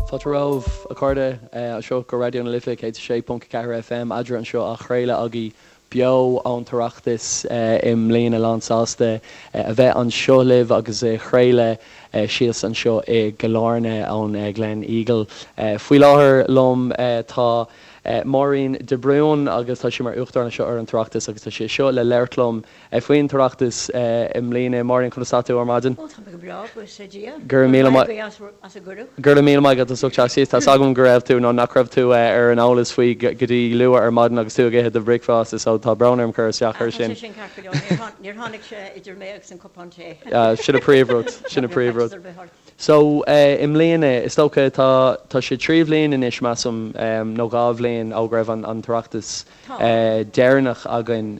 Fáilte romhaibh, a chairde, anseo go Raidió na Life 106.4 FM, Eadra anseo á chraoladh agaibh beo ón tOireachtas i mbliana. Lán sásta a bheith anseo libh agus a chraoladh síos anseo i gCill Airne ón Gleneagle. Faoi láthair liom tá Máirín de Brún agus tá sí mar Uachtarán anseo ar an tOireachtas agus tá sí anseo le labhairt liom Faoin tOireachtas i mbliana. Máirín, conas tá tú ar maidin? Ó, tá mé go breá, buíochas le Dia. Go raibh míle maith. as an gcuireadh. Go raibh míle maith agat as ucht teacht síos. Tá's agam go raibh tú, nó nach raibh tú ar an eolas faoi go dtí luath ar maidin agus tú ag ithe do bhricfeasta, so tá brón orm cur isteach air sin. Tá sé sin ceart go leor. Níor tháinig sé idir mé agus an cupán tae. Sin an príomhrud, sin an príomhrud. So, i mbliana, is dócha, tá, tá sé 3 bhliain anois, measaim, nó 2 bhliain ó go raibh an tOireachtas deireanach againn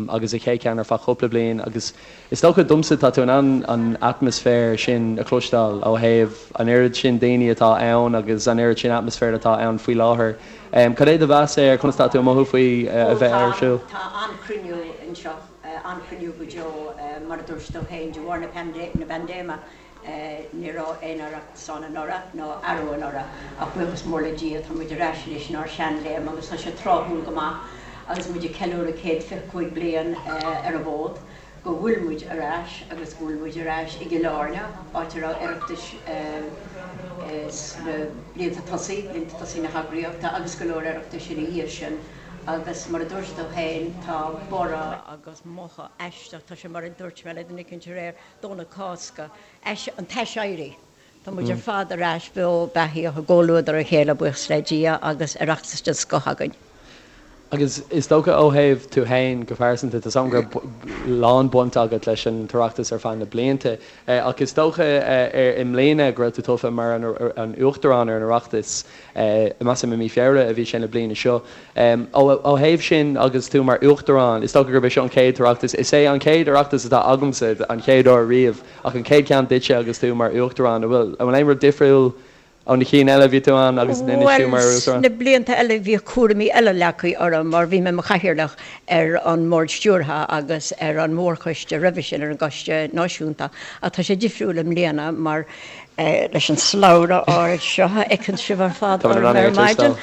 agus an chéad cheann ar feadh cúpla bliain agus is dócha domsa tá tú in ann an atmaisféar sin a chloisteáil ó thaobh an oiread sin daoine atá ann agus an oiread sin atmaisféar atá ann faoi láthair. Cad é do mheas air? Conas tá tú ag mothú faoi a bheith ar siúl? Tá an-chruinniú anseo, an-chruinniú go deo mar a dúirt tú féin de bharr na paindéime. Ní raibh aon Oireachtas ann anuraidh, ná arú anuraidh, ach buíochas mór le Dia tá muid ar ais anois inár seanléim agus tá sé tráthúil go maith agus muid ag ceiliúradh 125 bliain ar an bhfód go bhfuil muid ar ais agus go bhfuil muid ar ais i gCill Airne, áit a raibh Oireachtais sna blianta tosaigh, blianta tosaigh na heagraíochta agus go leor Oireachtais ina dhiaidh sin agus mar a dúirt tú féin tá borradh agus mothú aisteach, tá sé mar a dúirt mé le duine eicínt aréir, Domhnach Cásca, an t-aiséirí. Tá muid ar fad ar ais beo beathaíoch i gcomhluadar a chéile, buíochas le Dia, agus Oireachtas den scoth againn. Agus is dócha ó thaobh tú fhéin go pearsanta, tá 's agam go raibh lán baint agat leis an tOireachtas ar feadh na blianta, ach is dócha i mbliana go raibh tú tofa mar an Uachtarán ar an Oireachtas. Measaim i mí Feabhra a bhí sé na bliana seo. Ó thaobh sin agus tú mar Uachtarán, is dócha gurb é seo an chéad Oireachtas, is é an chéad Oireachtas atá agamsa, an chéad uair riamh, ach an chéad cheann duitse agus tú mar Uachtarán. An bhfuil aon rud difriúil ó na cinn eile a bhí tú ann agus anois tú mar Bhuel, Uachtarán? sna blianta eile bhíodh cúraimí eile leagtha orm mar bhí mé mo chathaoirleach ar an mBord Stiúrtha agus ar an mórchoiste roimhe sin, ar an gCoiste Náisiúnta, ach tá sé difriúil i mbliana mar leis an slabhra ard seo a fheiceann sibh ar fad orm ar maidin.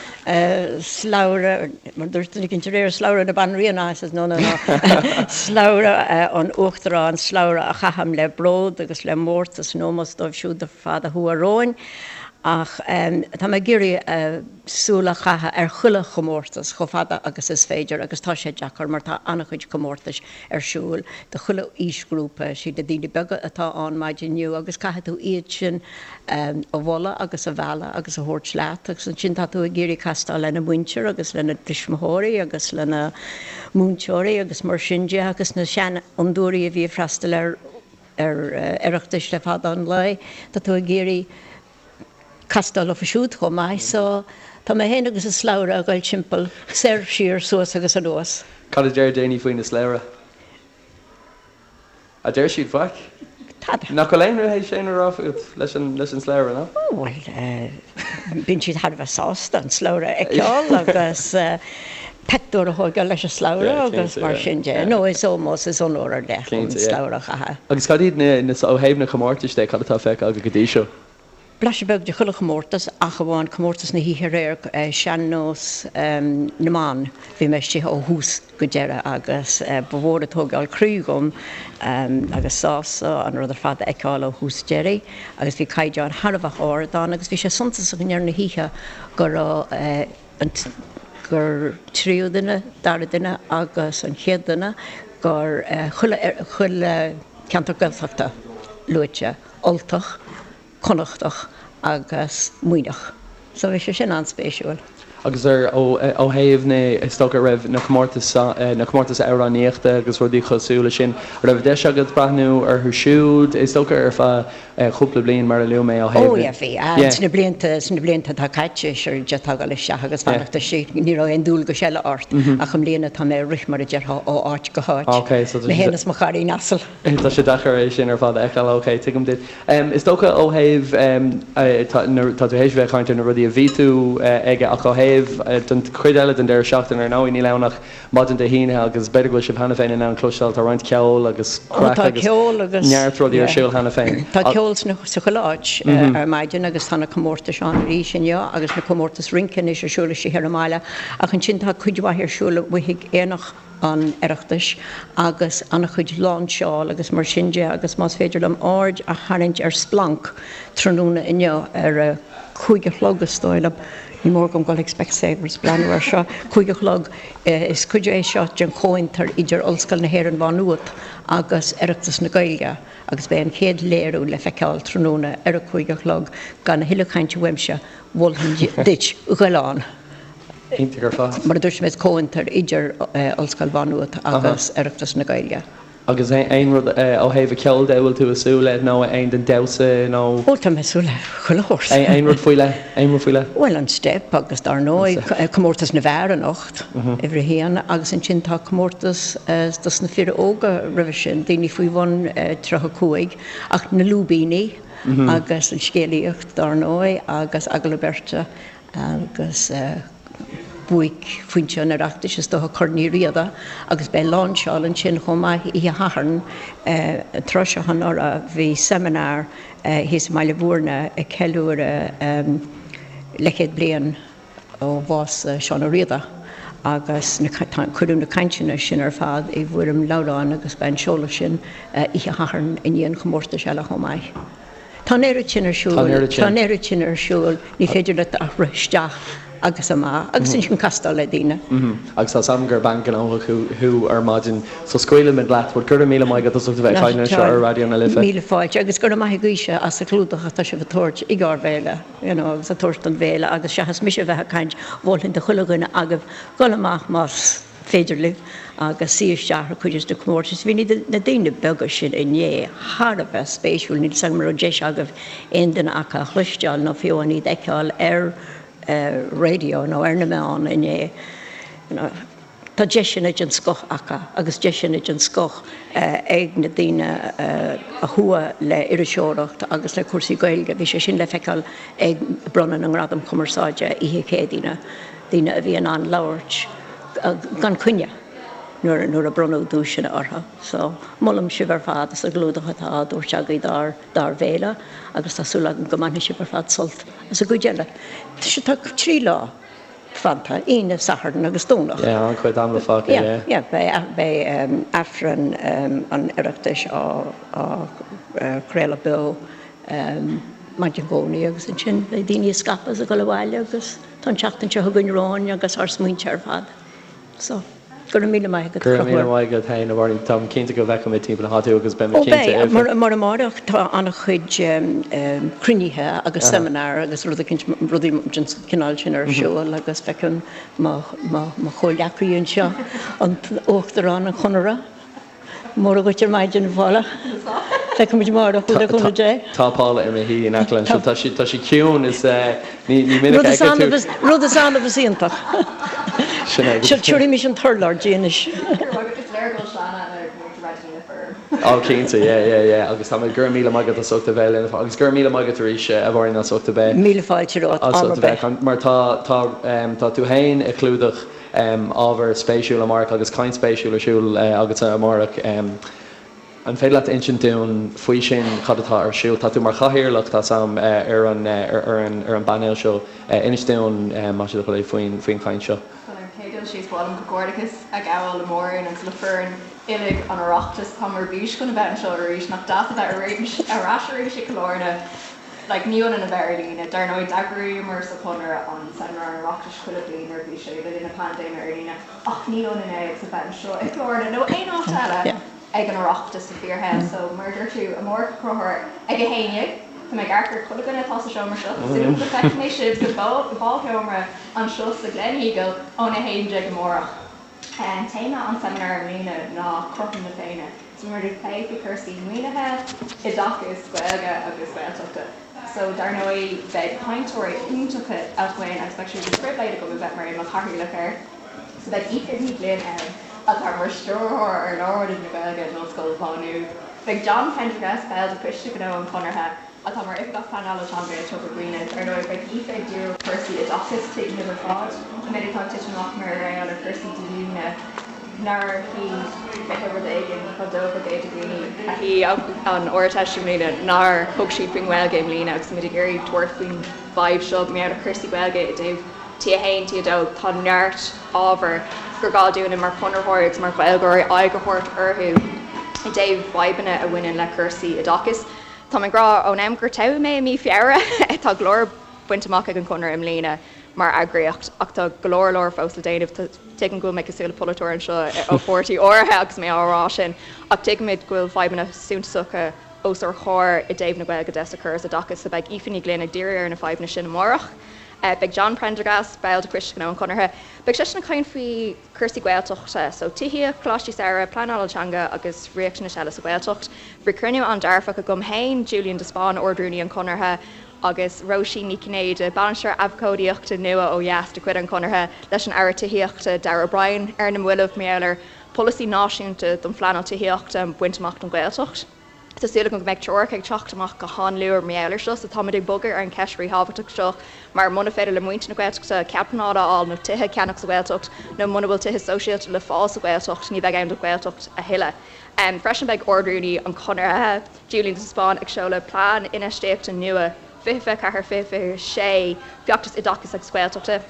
Slabhra, mar dúirt duine eicínt aréir, slabhra na banríona, I says no, no, no, slabhra an Uachtaráin, slabhra a chaithim le bród agus le mórtas in ómós dóibh siúd ar fad a chuaigh romhainn. Ach tá mé ag iarraidh súil a chaitheamh ar chuile chomórtas chomh fada agus is féidir agus tá sé deacair mar tá an-chuid comórtais ar siúl do chuile aoisghrúpa. Siad na daoine beaga atá ann maidin inniu agus caithfidh tú iad sin a mholadh agus a mhealladh agus a thabhairt leat agus ansin tá tú ag iarraidh castáil lena muintir agus lena dtuismitheoirí agus lena múinteoirí agus mar sin de agus na seanfhondúirí a bhí ag freastal ar ar Oireachtais le fada an lá, tá tú ag iarraidh castáil leofa siúd chomh maith so tá mé féin agus an slabhra ag dul timpeall, soir, siar, suas agus anuas. Cad a deir daoine faoina slabhra? A deir siad faic? Tada. Nach bhfuil aon rud théis aon rud a rá fút leis an leis an slabhra, ná? Ó bhuel, bíonn siad thar a bheith sásta an slabhra a fheiceáil agus pictiúr a thógáil leis an slabhra agus mar sin de. No, is ómós, is onóir ar leith an slabhra a chaitheamh. Agus cad iad na, na, ó thaobh na comórtais de, cad atá feicthe agat go dtí seo? Blaiseadh beag de chuile chomórtas ach amháin comórtas na hoíche aréir, Sean-Nós na mBan. Bhí mé istigh ó thús go deireadh agus ba mhór an tógáil croí dhom agus sásamh an rud ar fad a fheiceáil ó thús deiridh agus bhí caighdeán thar a bheith ard ann agus bhí sé suntasach i ndeireadh na hoíche go raibh an gur tríú duine, dara duine agus an chéad duine gur chuile chuile ceantar Gaeltachta luaite, Ultach, Connachtach agus Muimhneach. So bhí sé sin an-spéisiúil. Agus ar, ó, ó thaobh na, is dócha, raibh na comórtais, na comórtais amhránaíochta agus rudaí cosúil leis sin, an raibh deis agat breathnú orthu siúd, is dócha, ar feadh cúpla bliain mar a luaigh mé ó thaobh Ó yeah, bhí. Yeah. Sna blianta, sna blianta atá caite, sure, d'fhéadfá dul isteach agus fanacht istigh, ní raibh aon dualgais eile ort. Ach i mbliana tá mé ag rith mar a déarfá ó áit go háit. Ok, so tá Mé féin is mo chairín asail. Tá sé deacair é sin ar fad a fheiceáil. Ok, tuigim duit. Is dócha ó thaobh, tá tú théis bheith ag caint ar na rudaí a bhí tú aige ach ó thaobh. thaobh den chuid eile den deireadh seachtaine, ar ndóigh níl ann ach maidin Dé hAoine agus b'fhéidir go bhfuil sibh cheana féin in ann cloisteáil, tá roinnt ceoil agus craic agus neart rudaí ar siúl cheana féin. Tá ceol sa chuile áit ar maidin agus tá na comórtais ann arís inniu agus na comórtais rince anois ar siúl istigh ar an mbaile ach ansin tá cuid mhaith ar siúl amuigh ag Aonach an Oireachtais agus an-chuid láinseáil agus mar sin de agus más féidir liom aird a tharraingt ar Splanc tráthnóna inniu ar a 5 a chlog is dóigh liom, ní mór dom dul ag Specsavers breathnú air seo, 5 a chlog, is cuid é seo den chomhfhiontar idir Ollscoil na hÉireann Mhá Nuad agus Oireachtas na Gaeilge agus beidh an chéad léiriú le feiceáil tráthnóna ar a 5 a chlog. Gan a thuilleadh cainte uaimse, mholfainn duit goil ann. Iontach ar fad. Mar a dúirt mé, is comhfhiontar idir Ollscoil Mhá Nuad agus Oireachtas na Gaeilge. Agus aon rud ó thaobh an cheoil de a bhfuil tú ag súil le nó aon den damhsa nó. Ó tá mé ag súil le chuile shórt. Aon rud faoi leith? Aon rud faoi leith? Bhuel an steip agus dar ndóigh comórtas na bhfear anocht, uimhir a haon, agus ansin tá comórtas dos na fir óga roimhe sin, daoine faoi bhun 35, ach na lúibíní agus an scéalaíocht dar ndóigh agus agallamh beirte agus buaicphointe an Oireachtais is dócha Corn Uí Riada agus beidh láinseáil ansin chomh maith oíche Shathairn. An tráth seo anuraidh bhí seimineár thíos i mBaile Bhúirne ag ceiliúradh leathchéad bliain ó bhás Seán Ó Riada agus cuireadh na cainteanna sin ar fad i bhfoirm leabhráin agus beidh an seoladh sin oíche Shathairn i ndiaidh an chomórtais eile chomh maith. Tá an oiread sin ar siúl. Tá an oiread sin. Tá an oiread sin ar siúl. Ní féidir leat ach rith isteach agus amach agus ansin castáil le daoine. Agus tá 's agam gur bean ghnóthach thú ar maidin so scaoilfimid leat but go raibh míle maith agat as ucht a bheith ag caint linn anseo ar Raidió na Life. Míle fáilte agus go raibh maith agaibhse as an chlúdach atá sibh ag tabhairt ag ár bhféile you know agus ag tabhairt don bhféile agus seachas mise a bheith ag caint mholfainn do chuile dhuine agaibh dul amach más féidir libh agus suí isteach ar chuid de na comórtais. Bhí na daoine beaga sin inné thar a bheith spéisiúil, níl 's agam an raibh deis agaibh aon duine acu a chloisteáil nó fiú amháin iad a fheiceáil ar raidió nó ar na meáin inné. Tá deiseanna den scoth acu agus deiseanna den scoth ag na daoine a chuaigh le iriseoireacht agus le cúrsaí Gaeilge. Bhí sé sin le feiceáil ag bronnadh na nGradam Cumarsáide oíche Chéadaoine. daoine a bhí in ann labhairt gan coinne nuair a bronnadh duaiseanna orthu. So, molaim sibh ar fad as an gclúdach atá á dtabhairt agaibh dár dár bhféile agus tá súil agam go mbainfidh sibh ar fad sult as an gcuid eile. Tá 3 lá fanta, Aoine, Satharn agus Domhnach. Yeah, an-chuid ama fágtha, yeah. Yeah, yeah, beidh Aifreann an Oireachtais á chraoladh beo maidin Dhomhnaigh agus ansin beidh daoine ag scaipeadh is ag dul abhaile agus Tá an tseachtain seo chugainn romhainn agus ár smaointe ar fad. So, go raibh míle maith agat, Go raibh míle maith agat féin, a Mháirín. Táim cinnte go bhfeicfidh mé timpeall na háite thú agus beidh mé cinnte. Ó beidh, mar amárach tá an-chuid cruinnithe agus seimineár agus rudaí den chineál sin ar siúl agus feicim mo chomhghleacaí anseo, an tUachtarán an Chonartha. Móra dhuit ar maidin, a Phaula. Feicfidh muid amárach thú le cúnamh Dé. Tá Paula i mo shuí in aice liom anseo. Tá sí, tá sí ciúin is ní minic a fheicfidh tú. Rud is annamh is iontach. Sin é. Seo, tabharfaimis an t-urlár di anois. Go raibh maith agat. Is léir go bhfuil Seanadh ina mhúinteoir Raidió na Life. Ó cinnte, yeah, yeah, yeah. Agus tá mé, go raibh míle maith agat as ucht a bheith linn agus go raibh míle maith agat arís a Mháirín as ucht a bheith. Míle fáilte romhat, am ar bith. Mar tá, tá, tá tú féin ag clúdach ábhar spéisiúil amárach agus caint spéisiúil ar siúl agatsa amárach. An féidir leat insint dúinn faoi sin, cad atá ar siúl? Tá tú mar chathaoirleach, tá 's a'm, ar an ar an ar an bpainéal seo. Inis dúinn, más é do thoil é, faoin faoin chaint seo. Bhuel, ar an chéad dul síos, ba mhaith liom comhghairdeachas a ghabháil le Máirín agus le foireann uilig an Oireachtais. Táim ar bís chun a bheith anseo arís. Nach deas a bheith ar ais arís i gCill Airne. Like, ní ionann a bheith ar líne. Dar ndóigh, d'eagraíomar sa Chonradh an Seimineár an Oireachtais chuile bhliain nuair a bhí sé le linn na paindéime ar líne, ach ní ionann é agus a bheith anseo i gCill Airne nó aon áit eile ag an Oireachtas sa bhfíorshaol. So, mar a dúirt tú, amárach a Chonchúir, ag 11, tá mé ag amharc ar chuile dhuine atá sa seomra seo, tá súil agam go bhfeicfidh mé sibh sa bhálsheomra anseo sa Gleneagle ón 11 amárach. Téama an tseimineáir i mbliana ná Cothrom na Féinne. So beidh muid ag plé faoi chúrsaí maoinithe, oideachais, Gaeilge agus Gaeltachta. So dar ndóigh beidh cainteoirí iontacha againn agus beidh sé de phribhléid agam a bheith mar mo chathaoirleach air. So beidh Aoife Ní Ghlinn ann atá mar stiúrthóir ar Lárionad na Gaeilge in Ollscoil Mhá Nuad. Beidh John Prendergast, ball de Choiste Gnó an Chonartha. atá mar Oifigeach Pleanála Teanga i Togra Dhuibhne. Ar ndóigh, beidh Aoife ag díriú ar chúrsaí oideachais, tuigimid ar fad an méid atá ag titim amach mar gheall ar chúrsaí díolúine nár shuigh 20 rud éigin chomh dócha go de dhaoine a shuigh an Ardteist i mbliana nár thug siad faoin nGaeilge i mbliana agus muid ag iarraidh tabhairt faoin bhfadhb seo mar gheall ar chúrsaí Gaeilge i dtaobh T1, T2, tá neart ábhar gur gá dúinne mar chonraitheoirí agus mar Ghaeilgeoirí aghaidh a thabhairt orthu i dtaobh fadhbanna a bhaineann le cúrsaí oideachais. Tá mé ag rá ón am gur toghadh mé i mí Feabhra, tá go leor bainte amach ag an Chonradh i mbliana mar eagraíocht ach tá go leor leor fós le déanamh. Tuigim go bhfuil mé cosúil le polaiteoir anseo ó pháirtí áirithe agus mé á rá sin ach tuigimid go bhfuil fadhbanna suntasacha os ár gcomhair i dtaobh na Gaeilge de sa chóras oideachais so beidh Aoife Ní Ghlinn ag díriú ar na fadhbanna sin amárach. Beidh John Prendergast, ball de Choiste Gnó an Chonartha, beidh seisean ag caint faoi chúrsaí Gaeltachta, so tithíocht, coláistí samhraidh, pleanáil teanga agus riachtanais eile sa Ghaeltacht. Bhí cruinniú an-dearfach agam féin, Julian de Spáinn, Ard-Rúnaí an Chonartha, agus Róisín Ní Chinnéide, Bainisteoir Abhcóideachta nua ó dheas de chuid an Chonartha, leis an Aire Tithíochta, Darragh O'Brien, ar na mallaibh mar gheall ar pholasaí náisiúnta don phleanáil tithíochta a bhaint amach don Ghaeltacht. Tá súil agam go mbeidh treoracha ag teacht amach go han-luath mar gheall air seo so táimid ag bogadh ar an cheist ríthábhachtach seo mar muna féidir le muintir na Gaeltachta cead pleanála a fháil nó tithe a cheannach sa Ghaeltacht nó muna bhfuil tithe sóisialta le fáil sa Ghaeltacht ní bheidh ann don Ghaeltacht a thuilleadh. Freisin beidh Ard-Rúnaí an Chonartha, Julian de Spáinn ag seoladh plean infheistíochta nua 2024, 2026, Feachtas Oideachais agus Gaeltachta.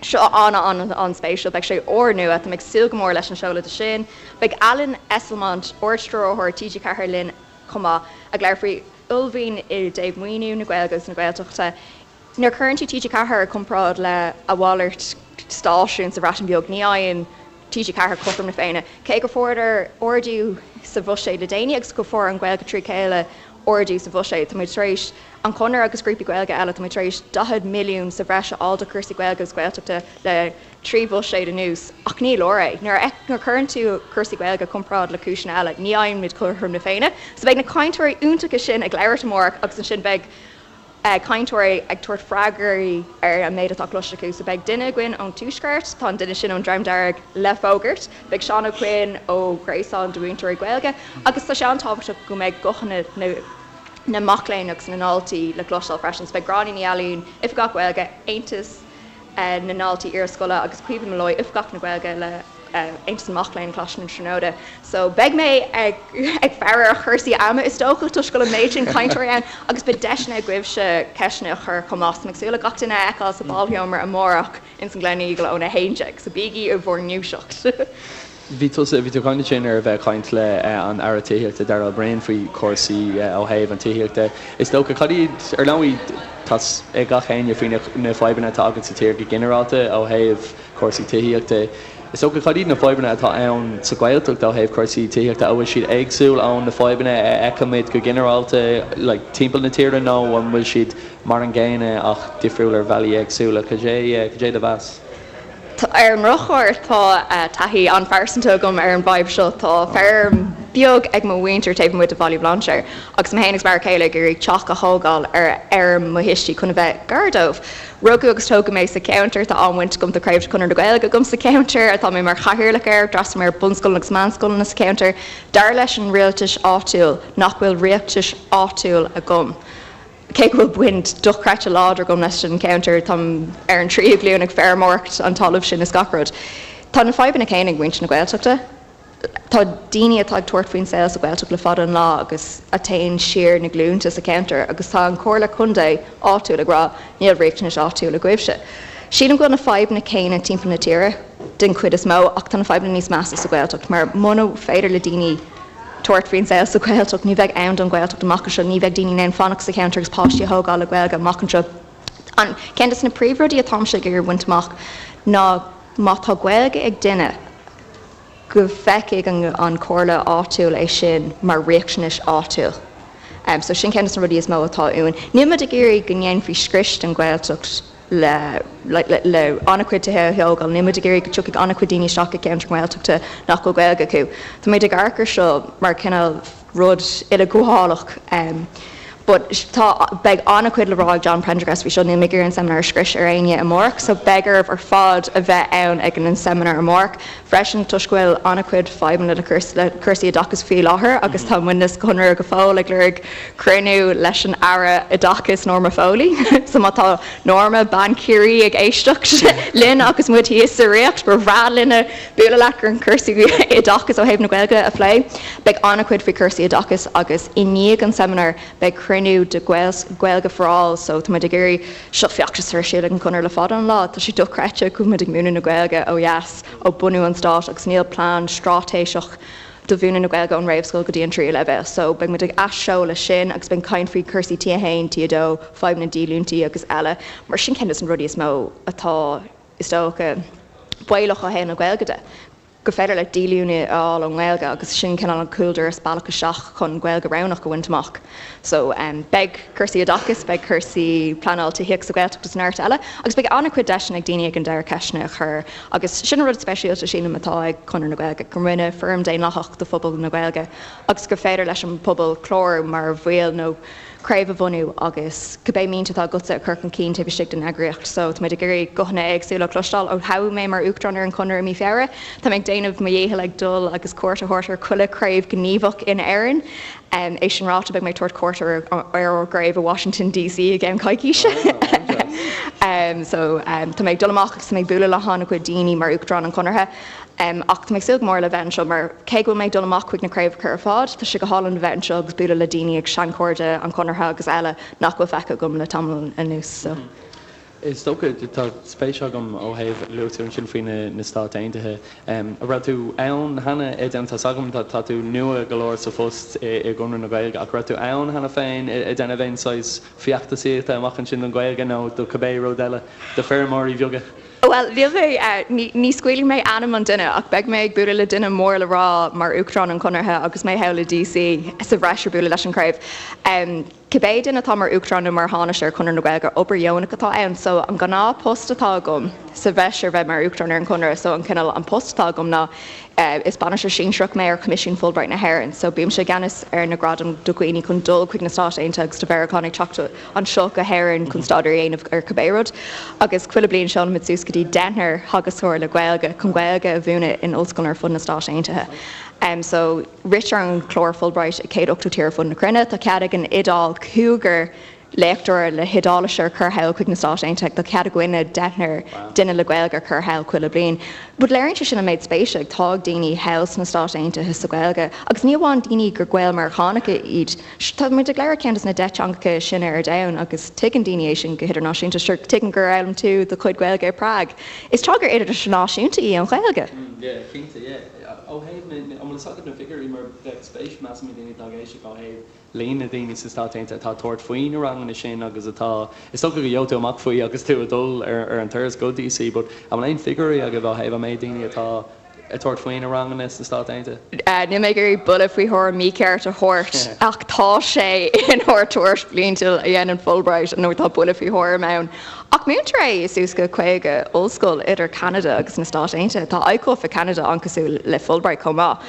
Seo an-an-an-spéisiúil. Beidh sé úrnua. Tá mé ag súil go mór leis an seoladh de sin. Beidh Alan Esslemont, Ard-Stiúrthóir TG4 linn chomh maith, ag labhairt faoi uaillmhian i dtaobh maoiniú na Gaeilge agus na Gaeltachta. Nuair a chuireann tú TG4 i comparáid le a mhalairt stáisiún sa Bhreatain Bheag, ní fhaigheann TG4 cothrom na Féinne. Cé go fuaireadar ardú sa bhuiséad le déanaí agus go fuair an Ghaeilge trí chéile ardú sa bhuiséad, tá muid tar éis, an Conradh agus grúpaí Gaeilge eile, tá muid tar éis 40 milliún sa bhreis a fháil do chúrsaí Gaeilge agus Gaeltachta le 3 bhuiséad anuas, ach ní leor é. Nuair a chuireann tú cúrsaí Gaeilge i comparáid le cúiseanna eile, ní fhaigheann muid cothrom na Féinne. So beidh na cainteoirí iontacha sin ag labhairt amárach agus ansin beidh cainteoirí ag tabhairt freagraí ar an méid atá cloiste acu. So beidh duine againn ón Tuaisceart, tá an duine sin ón Dream Dearg le fógairt, beidh Seán Ó Coinn ó Ghréasán de Mhúinteoirí Gaeilge agus tá sé an-tábhachtach go mbeidh guthanna na na mac léinn agus na ndaltaí le cloisteáil freisin. So beidh Gráinne Ní Ailín, Oifigeach Gaeilge, Aontas na nDaltaí Iarscoile agus Caoimhe Molloy, Oifigeach na Gaeilge le Aontas na Mac Léinn, Coláiste na Tríonóide. So beidh mé ag ag faire ar chúrsaí ama is dócha toisc go bhfuil an méid sin cainteoirí ann agus beidh deiseanna agaibhse ceisteanna a chur chomh maith. So mé ag súil le gach duine a fheiceáil sa bhálsheomra amárach ins an Gleneagle óna 11. So bígí i bhur ndúiseacht. Bhí tusa, bhí tú ag caint ansin ar a bheith ag caint le an Aire Tithíochta Darragh O'Brien faoi chúrsaí ó thaobh an tithíochta. Is dócha, cad iad, ar ndóigh tá 's ag gach éinne faoi na fadhbanna atá againn sa tír go ginearálta ó thaobh cúrsaí tithíochta. Is dócha, cad iad na fadhbanna atá ann sa Ghaeltacht ó thaobh cúrsaí tithíochta? An bhfuil siad éagsúil ón na fadhbanna a fheicimid go ginearálta like timpeall na tíre nó an bhfuil siad mar an gcéanna ach difriúil ar bhealaí éagsúla? Cad é, cad é do mheas? Ar an ndrochuair, tá taithí an-phearsanta agam ar an bhfadhb seo. Tá feirm beag ag mo mhuintir taobh amuigh de Bhaile Bhlainséir agus mé féin agus m'fhear céile ag iarraidh teach a thógáil ar fheirm mo thuistí chun a bheith gar dóibh. Rugadh agus tógadh mé sa cheantar, tá an-bhaint agam, tá craobh de Chonradh na Gaeilge agam sa cheantar, tá mé mar chathaoirleach air, d'fhreastail mé ar bunscoileanna agus meánscoileanna sa cheantar. Dar leis an rialtas áitiúil nach bhfuil riachtanais áitiúil agam. Cé go bhfuil baint dochreidte láidir agam leis an cheantar, táim ar an tríú glúin ag feirmeoireacht an talamh sin is gach rud. Tá na fadhbanna céanna ag muintir na Gaeltachta. Tá daoine atá ag tabhairt faoin saol sa Ghaeltacht le fada an lá agus a théann siar na glúnta sa cheantar agus tá an Comhairle Contae áitiúil ag rá níl riachtanais áitiúil agaibhse. Sílim go bhfuil na fadhbanna céanna timpeall na tíre den chuid is mó ach tá na fadhbanna níos measa sa Ghaeltacht mar muna féidir le daoine tabhairt faoin saol sa Ghaeltacht. Ní bheidh ann don Ghaeltacht amach anseo, ní bheidh daoine in ann fanacht sa cheantar agus páistí a thógáil le Gaeilge amach anseo. An ceann de na príomhrudaí atáimse ag iarraidh a bhaint amach ná má tá Gaeilge ag duine go bhfeicfidh an chomhairle áitiúil é sin mar riachtanais áitiúil. So sin ceann de na rudaí is mó atá uainn. Níl muid ag iarraidh go ndéanfaí scrios den Ghaeltacht le le an-chuid tithe a thógáil. Níl muid ag iarraidh go dtiocfaidh an-chuid daoine isteach i gceantar Gaeltachta nach bhfuil Gaeilge acu. Tá muid ag amharc ar seo mar cineál rud uileghabhálach but tá beidh an-chuid le rá ag John Prendergast faoi seo. Níl mé ag iarraidh an seimineár a scrios ar éinne amárach so beidh oraibh ar fad a bheith ann ag an seimineár amárach. Freisin, toisc go bhfuil an-chuid fadhbanna le cúrsaí oideachais faoi láthair agus tá muidne sa Chonradh go fóill ag lorg cruinniú leis an Aire Oideachais Norma Foley. So má tá Norma, bean Chiarraí, ag éisteacht linn agus muid thíos sa Ríocht, ba bhreá linne bualadh leat chun cúrsaí oideachais ó thaobh na Gaeilge a phlé. Beidh an-chuid faoi chúrsaí oideachais agus i ndiaidh an seimineáir beidh cruinniú de Gaeilge for All so tá muid ag iarraidh Seo feachtas atá ar siúl ag an Chonradh le fada an lá. Tá sé dochreidte go bhfuil muid ag múineadh na Gaeilge ó dheas ó bunú an stáit agus níl plean straitéiseach do mhúineadh na Gaeilge ón réamhscoil go dtí an tríú leibhéal. So beidh muid ag athsheoladh sin agus beidh caint faoi cúrsaí T1, T2, fadhb na díolúintí agus eile mar sin ceann de na rudaí is mó atá, is dócha, baolach ó thaobh na Gaeilge de. gur féidir leat díolúine a fháil ón nGaeilge agus sin cineál an cúldoras, bealach isteach chun Gaeilge roghnach a bhaint amach. So beidh cúrsaí oideachais, beidh cúrsaí pleanáil tithíochta sa Ghaeltacht agus neart eile agus beidh an-chuid deiseanna ag daoine ag an deireadh ceisteanna a chur agus sin an rud speisialta sílim atá ag Conradh na Gaeilge, gur muidne foram daonlathach do phobal na Gaeilge agus gur féidir leis an bpobal clárú mar bhaill nó craobh a bhunú agus cibé mianta atá agatsa a chur chun cinn taobh istigh den eagraíocht. So, tá muid ag iarraidh guthanna éagsúla a chloisteáil. Ó toghadh mé mar Uachtarán ar an Chonradh i mí Feabhra, tá mé ag déanamh mo dhícheall ag dul agus cuairt a thabhairt ar chuile chraobh gníomhach in Éirinn. É sin ráite, beidh mé ag tabhairt cuairt ar ár gcraobh i Washington DC i gceann coicíse. So, tá mé ag dul amach agus tá mé ag bualadh le han-chuid daoine mar Uachtarán an Chonartha. Ach tá mé ag súil go mór le bheith anseo mar cé go bhfuil mé ag dul amach chuig na craobhacha ar fad, tá sé go hálainn a bheith anseo agus bualadh le daoine agus seanchairde an Chonartha agus eile nach bhfuil feicthe agam le tamall anuas. So. Is dócha, tá spéis agam ó thaobh, luaigh tú ansin faoi na Stáit Aontaithe. An raibh tú ann cheana ag déanamh, tá's agam tá tú nua go leor sa phost i gConradh na Gaeilge ach raibh tú ann cheana féin ag déanamh aon saghas feachtasaíochta amach ansin don Ghaeilge nó do cibé rud eile, do feirmeoirí bheaga? Bhuel, níl mé, ní scaoilfidh mé ainm an duine, ach beidh mé ag bualadh le duine mór le rá mar Uachtarán an Chonartha agus mé thall i DC sa bhreis ar bualadh leis an chraobh. Cibé duine atá mar Uachtarán nó mar Thánaiste ar Chonradh na Gaeilge, obair dheonach atá ann. So, an gnáth post atá agam sa bhreis ar bheith mar Uachtarán ar an Chonradh, so an cineál, an post atá agam ná, Is bainisteoir sinsearach mé ar Choimisiún Fulbright na hÉireann, so bímse i gceannas ar na gradaim do dhaoine chun dul chuig na Stáit Aontaithe agus do Mheiriceánaigh teacht anseo go hÉirinn chun staidéar a dhéanamh ar cibé rud. Agus chuile bliain seolaimid suas go dtí deichniúr theagascóir le Gaeilge chun Gaeilge a mhúineadh in ollscoileanna ar fud na Stáit Aontaithe. So ritear an clár Fulbright i 180 tír ar fud na cruinne. Tá cead ag an Iodáil cúigear léachtóir le hIodáilis a chur thall chuig na Stáit Aontaithe. Tá cead againne deichniúr duine le Gaeilge a chur thall chuile bliain. But léiríonn sé sin an méid spéise atá ag daoine thall sna Stáit Aontaithe sa Ghaeilge. Agus ní amháin daoine gur Gael-Meiriceánacha iad. Tá muid ag labhairt ceann des na 10 teangacha is sine ar domhan agus tuigeann daoine é sin go hidirnáisiúnta. Sure, tuigim gur fhoghlaim tú do chuid Gaeilge i Prague. Is teanga idirnáisiúnta í an Ghaeilge. Yeah, cinnte, yeah. Ó thaobh na, an bhfuil fhios agat na figiúirí mar bheadh spéis measaim ag daoine atá ag éisteacht ó thaobh líon na ndaoine sna Stáit Aontaithe atá ag tabhairt faoi na ranganna sin agus atá, is dócha go gheobhaidh tú amach faoi agus tú ag dul ar an turas go DC, but an bhfuil aon figiúirí agaibh ó thaobh an méid daoine atá ag tabhairt faoi na ranganna sna Stáit Aontaithe? Níl mé ag iarraidh buille faoi thuairim mícheart a thabhairt ach tá sé inár dtuairisc bhliantúil a dhéanann Fulbright nó tá buille faoi thuairim ann. Ach múintear é i suas go 50 ollscoil idir Ceanada agus na Stáit Aontaithe. Tá ICUF i Ceanada an-cosúil le Fulbright chomh maith.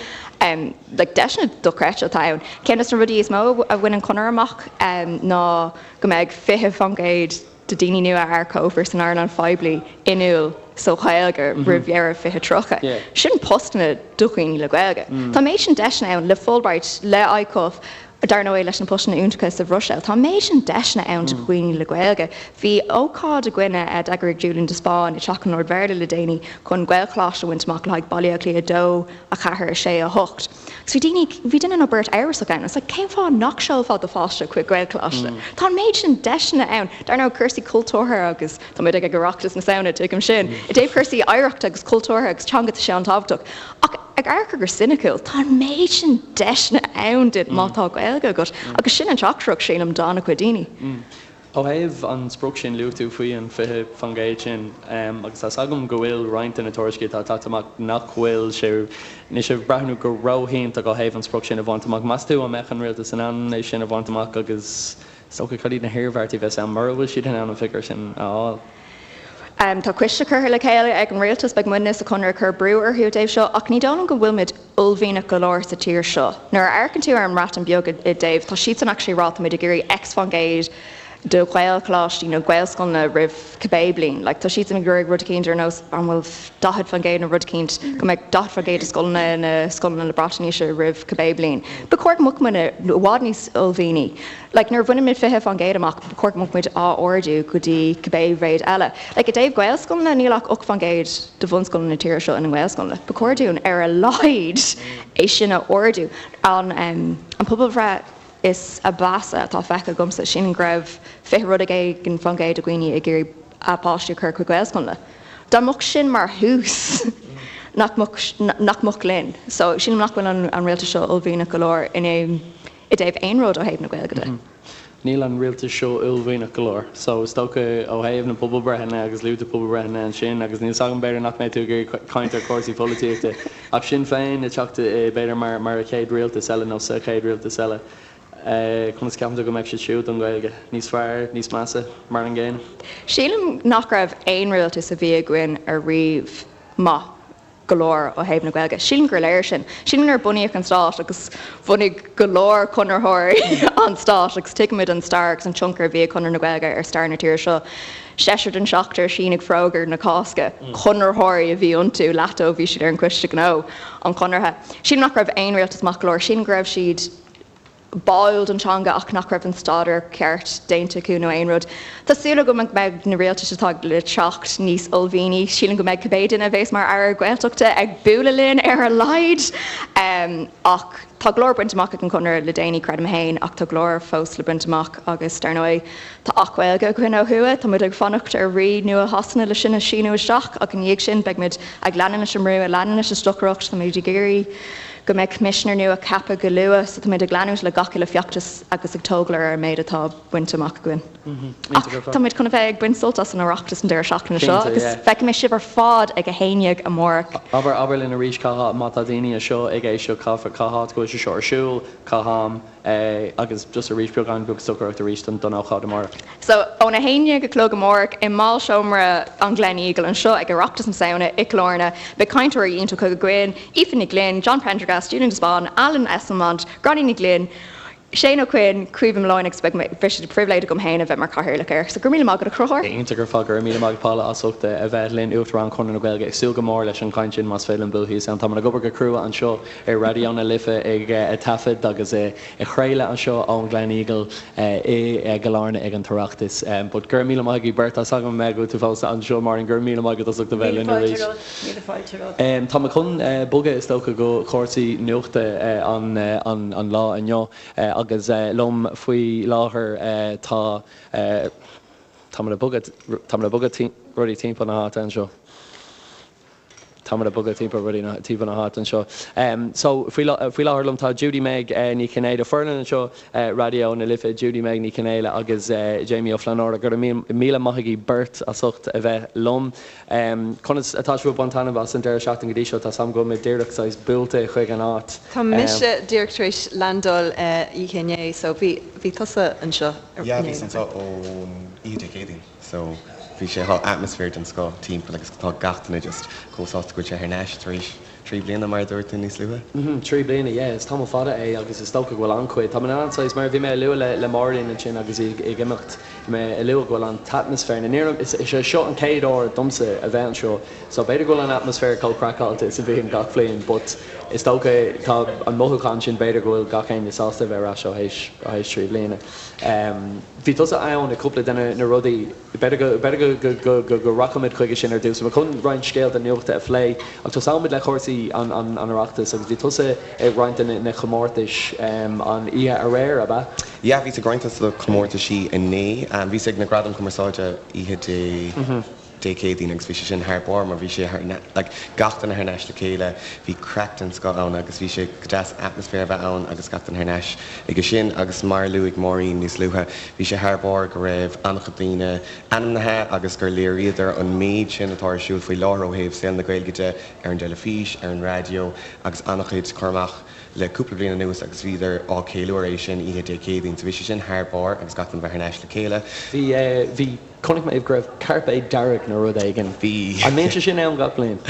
Like deiseanna dochreidte atá ann. Ceann de na rudaí is mó a bhain an Conradh amach ná go mbeidh 20% de daoine nua a earcófar san earnáil phoiblí inniúil sa Ghaeilge roimh dheireadh 2030. Sin postanna do dhaoine le Gaeilge. Tá an méid sin deiseanna ann le Fulbright, le ICUF, dar ndóigh leis na postanna iontacha sa Bhruiséil. Tá an méid sin deiseanna ann do dhaoine le Gaeilge. Bhí ócáid againne a d'eagraigh Julian de Spáinn i dTeach an Lord Bhéarla le déanaí chun Gaelcholáiste a bhaint amach le haghaidh Baile Átha Cliath 2, 4, 6, 8. Agus bhí daoine, bhí duine nó beirt amhrasach ann. It's like, cén fáth nach seolfá do pháiste chuig Gaelcholáiste? Tá an méid sin deiseanna ann. Dar ndóigh, cúrsaí cultúrtha agus tá muid ag Oireachtas na Samhna, tuigim sin. I dtaobh cúrsaí oidhreachta agus cultúrtha agus teanga, tá sé an-tábhachtach. Ach ag amharc go soiniciúil, tá an méid sin deiseanna ann duit má tá Gaeilge agat. Agus sin an teachtaireacht, sílim, d'an-chuid daoine. Ó thaobh an sprioc sin, luaigh tú faoi an 20% sin agus tá's agam go bhfuil roinnt de na tuairiscí atá tagtha amach nach bhfuil sé, níl sé ag breathnú go ró-iontach ó thaobh an sprioc sin a bhaint amach. Meas tú an mbeadh an rialtas in ann é sin a bhaint amach agus is dócha cad iad na hiarmhairtí a bheas ann mura bhfuil siad in ann an figiúr sin a fháil? Tá coiste curtha le chéile ag an rialtas, beidh muidne sa Chonradh ag cur brú orthu i dtaobh seo ach ní dóigh liom go bhfuil muid uaillmhianach go leor sa tír seo. Nuair a amharcann tú ar an mBreatain Bheag i dtaobh, tá siadsan actually ag rá tá muid ag iarraidh X fán gcéad. do Ghaelcholáistí nó Gaelscoileanna roimh cibé bliain. Like, tá siadsan ag iarraidh rud eicínt ar nós an bhfuil 40% nó rud eicínt, go mbeidh 40% de scoileanna ina scoileanna le brat aoise roimh cibé bliain. Ba chóir go mbeadh muid i bhfad níos uaillmhianaí. Like, nuair a bhaineann muid 20% amach, ba chóir go mbeadh muid á ardú go dtí cibé mhéid eile. Like, i dtaobh Gaelscoileanna, níl ach 8% de bhunscoileanna na tíre seo ina nGaelscoileanna. Ba chóir dúinn ar a laghad é sin a ardú. An, an pobalbhreith is a mheasa atá feicthe agamsa, sílim go raibh 20 rud éigin fán gcéad de dhaoine ag iarraidh a bpáistí a chur chuig Gaelscoileanna. Dá mbeadh sin mar thús, nach mbeadh, nach mbeadh linn. So, sílim nach bhfuil an, an rialtas seo uaillmhianach go leor in aon, i dtaobh aon rud ó thaobh na Gaeilge de. Níl an rialtas seo uaillmhianach go leor. So, is dócha ó thaobh na pobalbhreitheanna agus luaigh tú pobalbhreitheanna ansin agus níl 's agam, b'fhéidir nach mbeidh tú ag iarraidh caint ar chúrsaí polaitíochta Ach Sinn Féin ag teacht b'fhéidir mar mar a chéad rialtas eile nó sa chéad rialtas eile, conas ceapann tú go mbeidh siad siúd don Ghaeilge? Níos fearr? Níos measa? Mar an gcéanna? Sílim nach raibh aon rialtas a bhí againn ariamh maith go leor ó thaobh na Gaeilge. Sílim gur léir sin. Sílim nuair a bunaíodh an stát agus bhunaigh go leor conraitheoirí an stát agus tuigimid an stair agus an tionchar a bhí ag Conradh na Gaeilge ar stair na tíre seo. Seisear den seachtar a shínigh Forógra na Cásca, conraitheoirí a bhí iontu, leath dóibh bhí siad ar an gCoiste Gnó an Chonartha. Sílim nach raibh aon rialtas maith go leor, sílim go raibh siad báúil don teanga ach nach raibh an staidéar ceart déanta acu nó aon rud. Tá súil agam go mbeidh na rialtais atá le teacht níos uaillmhianaí. Sílim go mbeidh cibé duine a bheas mar Aire Gaeltachta ag bualadh linn ar a laghad. Ach tá go leor bainte amach ag an Chonradh le déanaí, creidim féin, ach tá go leor fós le baint amach agus dar ndóigh, Tá Acht Gaeilge againn ó thuaidh, tá muid ag fanacht ar Rí nua Shasana le sin a síniú isteach ach ina dhiaidh sin beidh muid ag leanúint leis an mbrú, ag leanúint leis an stocaireacht, tá muid ag iarraidh go mbeidh coimisinéir nua ceaptha go luath so tá muid ag leanúint le gach uile feachtas agus ag tógáil ar an méid atá bainte amach againn. Ach tá muid chun a bheith ag baint sult as an Oireachtas an deireadh seachtaine seo agus feicfidh mé sibh ar fad ag 11 amárach. Abair, abair linn arís cá háit, má tá daoine anseo ag éisteacht, cá háit go bhfuil sé seo ar siúl, cá ham. Agus just arís beagán beag stocaireacht arís don ócáid amárach. So, óna 11 a chlog amárach i mBálseomra an Gleneagle anseo ag Oireachtas na Samhna i gCill Airne, beidh cainteoirí iontacha againn, Aoife Ní Ghlinn, John Prendergast, Julian de Spáinn, Alan Esslemont, Gráinne Ní Ghlinn, Shane Ó Coinn, Caoimhe Molloy agus beidh sé de phribhléid agam féin a bheith mar chathaoirleach air. So, go raibh míle maith agat a Chonchúir. Iontach ar fad, go raibh míle maith agat Paula as ucht a bheith linn, Uachtarán Chonradh na Gaeilge. Ag súil go mór leis an chaint sin más féidir linn bualadh thíos ann. Táimid ag obair go crua anseo ar Raidió na Life ag taifead agus ag craoladh anseo ón Gleneagle i gCill Airne ag an tOireachtas. But go raibh míle maith agaibh beirt. Tá 's agam go bhfuil tú fós anseo Máirín, go raibh míle maith agat as ucht a bheith linn arís. Míle fáilte romhat. Tá mé chun bogadh is dócha go cúrsaí nuachta an lá inniu agus liom faoi láthair tá tá mé ag bogadh tá mé ag bogadh rudaí timpeall na háite anseo. Táimid ag bogadh timpeall rudaí na timpeall na háite anseo. So, faoi faoi láthair liom tá Judy Meg Ní Chinnéide, foireann anseo Raidió na Life, Judy Meg Ní Chinnéide agus Jamie Ó Flannúra. Go raibh míle maith agaibh beirt as ucht a bheith liom. Conas atá sibh ag baint taitneamh as an deireadh seachtaine go dtí seo? Tá 's agam go bhfuil muid díreach saghas buailte chuig an áit. Tá mise díreach tar éis landáil oíche inné so bhí bhí tusa anseo inné. Yeah, bhíos anseo ón oíche Dé Céadaoin. So, bhí sé, tá atmaisféar den scoth timpeall agus tá gach duine just chomh sásta go bhfuil sé thar n-ais tar éis trí bliana mar a dúirt tú níos luaithe. Mhm, trí bliana, yeah, is tamall fada é agus is dócha go bhfuil an-chuid, tá mé in ann saghas, mar a bhí mé a lua le le Máirín ansin agus í ag imeacht, bhí mé a lua go bhfuil an t-atmaisféar, na níor, is é seo an chéad uair domsa a bheith anseo so b'fhéidir go bhfuil an atmaisféar chomh craiceáilte is a bhíonn gach bliain but is dócha tá an mothúchán sin b'fhéidir go bhfuil gach éinne sásta a bheith ar ais ó théis, ó théis trí bliana. Bhí tusa ann ag cúpla de na rudaí. B'fhéidir go, b'fhéidir go, go, go, go rachaimid chuige sin ar dtús. Tá mé chun roinnt scéalta nuachta a phlé ach tosóimid le cúrsaí an, an, an Oireachtais agus bhí tusa ag roinnt de na comórtais an oíche aréir, ab ea? Yeah, bhíos ag roinnt de na comórtaisí inné. Bhíos ag na Gradaim Cumarsáide oíche Dé. Dé Céadaoin agus bhí sé sin thar barr mar bhí sé thar like gach duine thar n-ais le chéile, bhí craic den scoth ann agus bhí sé go deas atmaisféar a bheith ann agus gach duine thar n-ais aige sin agus mar a luaigh Máirín níos luaithe bhí sé thar barr go raibh an-chuid daoine ainmnithe agus gur léiríodar an méid sin atá ar siúl faoi láthair ó thaobh saol na Gaeilge de ar an dteilifís, ar an raidió agus an-chuid cur amach le cúpla bliain anuas agus bhíodar á ceiliúradh é sin oíche Dé Céadaoin so bhí sé sin thar barr agus gach duine bheith thar n-ais le chéile. Bhí, bhí. Chonaic mé go raibh cairpéad dearg nó rud éigin. Bhí. An mbíonn sé sin ann gach bliain?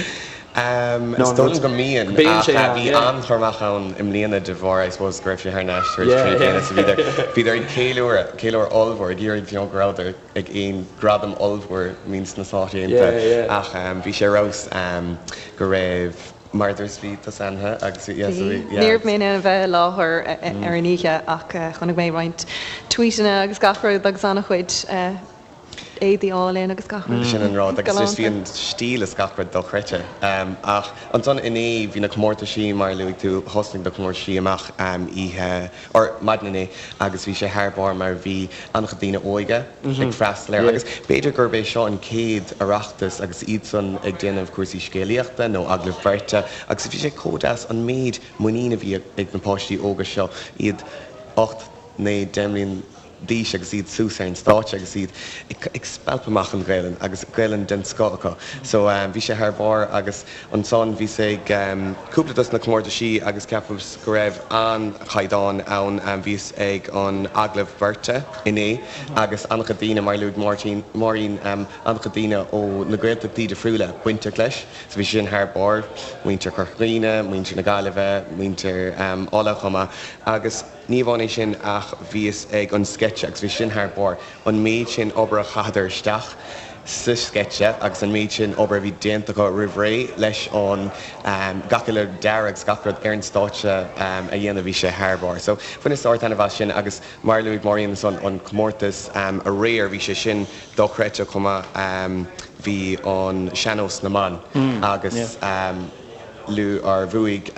Is dóigh liom go mbíonn, ach bhí an-chur amach ann i mbliana de bharr, I suppose, go raibh sé thar n-ais tar éis 3 bliana so bhíodar, bhíodar ag ceiliúradh, ceiliúradh ollmhór, ag iarraidh you know go rabhadar ag aon gradam ollmhór I mean sna Stáit Aontaithe ach bhí sé ar fheabhas go raibh, mar a dúirt, bhí tusa ann agus bhí, yeah so bhí, yeah. Ní raibh mé in ann a bheith i láthair ar an oíche ach chonaic mé roinnt tweetanna agus gach rud agus an-chuid éadaí álainn agus gach rud. Sin an rud, agus just bhí an stíl is gach rud dochreidte. Ach ansan inné bhí na comórtaisí, mar a luaigh tú, thosnaigh na comórtaisí amach oíche, or maidin inné agus bhí sé thar barr mar bhí an-chuid daoine óige ag freastal air agus b'fhéidir gurb é seo an chéad Oireachtas agus iadsan ag déanamh cúrsaí scéalaíochta nó agallamh beirte agus bhí sé chomh deas an méid muinín a bhí ag na páistí óga seo, iad 8, 9, 10 mbliana d'aois agus iad suas ar an stáitse agus iad ag spalpadh amach an Ghaelainn agus Gaelainn den scoth acu. So bhí sé thar barr agus ansan bhíos ag cúpla dos na comórtaisí agus ceapaim go raibh an-chaighdeán ann. Bhíos ag an agallamh beirte inné agus an-chuid daoine, mar a luaigh Máirtín, Máirín, an-chuid daoine ó na Gaeltachtaí difriúla bainteach leis. So bhí sé sin thar barr, muintir Chorca Dhuibhne, muintir na Gaillimhe, muintir Uladh chomh maith agus, Ní amháin é sin ach bhíos ag an sceitse agus bhí sin thar barr. An méid sin obair a chaitheadar isteach sa sceitse agus an méid sin obair a bhí déanta acu roimh ré leis an gach uile dearadh agus gach rud ar an stáitse a dhéanamh, bhí sé thar barr. So bhaineas ard-taitneamh as sin agus mar a luaigh Máirín ansan an comórtas aréir, bhí sé sin dochreidte chomh maith. Bhí an sean-nós na mban agus. Lu or bhuaigh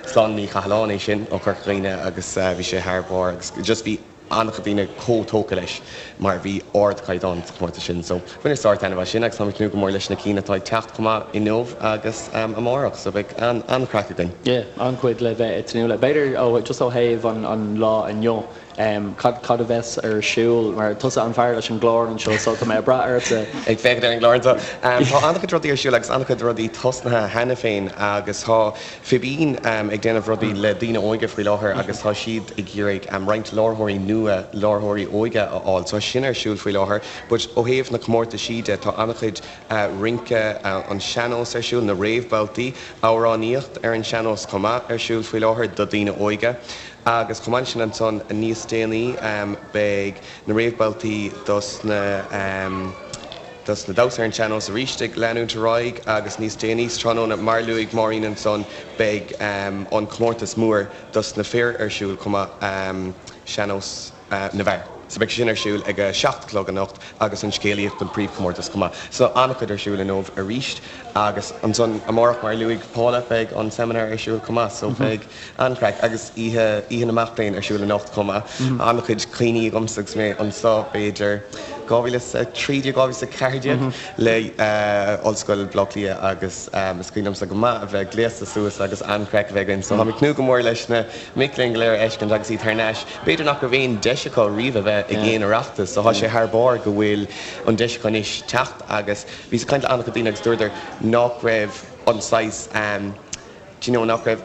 Sláine Ní Chathalláin é sin ó Chorca Dhuibhne agus bhí sé thar barr agus just bhí an-chuid daoine chomh tógtha leis mar bhí ardchaighdeán sa chomórtas sin. So bhaineas ard-taitneamh as sin agus táim ag tnúth go mór leis na cinn atá ag teacht chomh maith inniu agus amárach so beidh an-chraic againn. Yeah, an-chuid le bheith ag tnúth le. B'fhéidir ó just ó thaobh an lá inniu, Cad, cad a bheas ar siúl? Mar tusa an fear leis an gclár anseo so tá mé ag brath ortsa. Ag féachaint ar an gclár anseo. Tá an-chuid rudaí ar siúl agus an-chuid rudaí tosnaithe cheana féin agus tá Fibín ag déanamh rudaí le daoine óige faoi láthair agus tá siad ag iarraidh roinnt láithreoirí nua, láithreoirí óige a fháil. So tá sin ar siúl faoi láthair. But ó thaobh na comórtaisí de, tá an-chuid rince an sean-nós ar siúl, na réamhbhabhtaí, amhránaíocht ar an sean-nós chomh maith ar siúl faoi láthair do daoine óige. Agus chomh maith leis sin ansan níos déanaí beidh na réamhbhabhtaí dos na dos na damhsa ar an sean-nós arís ag leanúint ar aghaidh agus níos déanaí sa tráthnóna mar a luaigh Máirín ansan beidh an comórtas mór dos na fir ar siúl chomh maith, sean-nós na bhfear. So beidh sé sin ar siúl ag a 7 a chlog anocht agus an scéalaíocht an príomhchomórtas chomh maith. So an-chuid ar siúl inniu arís agus ansan amárach mar a luaigh Paula beidh an seimineár ar siúl chomh maith so beidh an-chraic agus oíche Oíche na Mac Léinn ar siúl anocht chomh maith. An-chuid cuimhní agamsa agus mé anseo b'fhéidir 2013, 2014 le Ollscoil Bhaile Átha Cliath agus is cuimhin liomsa go maith a bheith gléasta suas agus an-chraic a bheith againn so táim ag tnúth go mór leis na mic léinn go léir a fheiscint agus iad thar n-ais. B'fhéidir nach raibh aon deis acu riamh a bheith ag aon Oireachtas so tá sé thar barr go bhfuil an deis acu anois teacht agus bhíos ag caint le an-chuid daoine agus dúradar nach raibh an saghas do you know nach raibh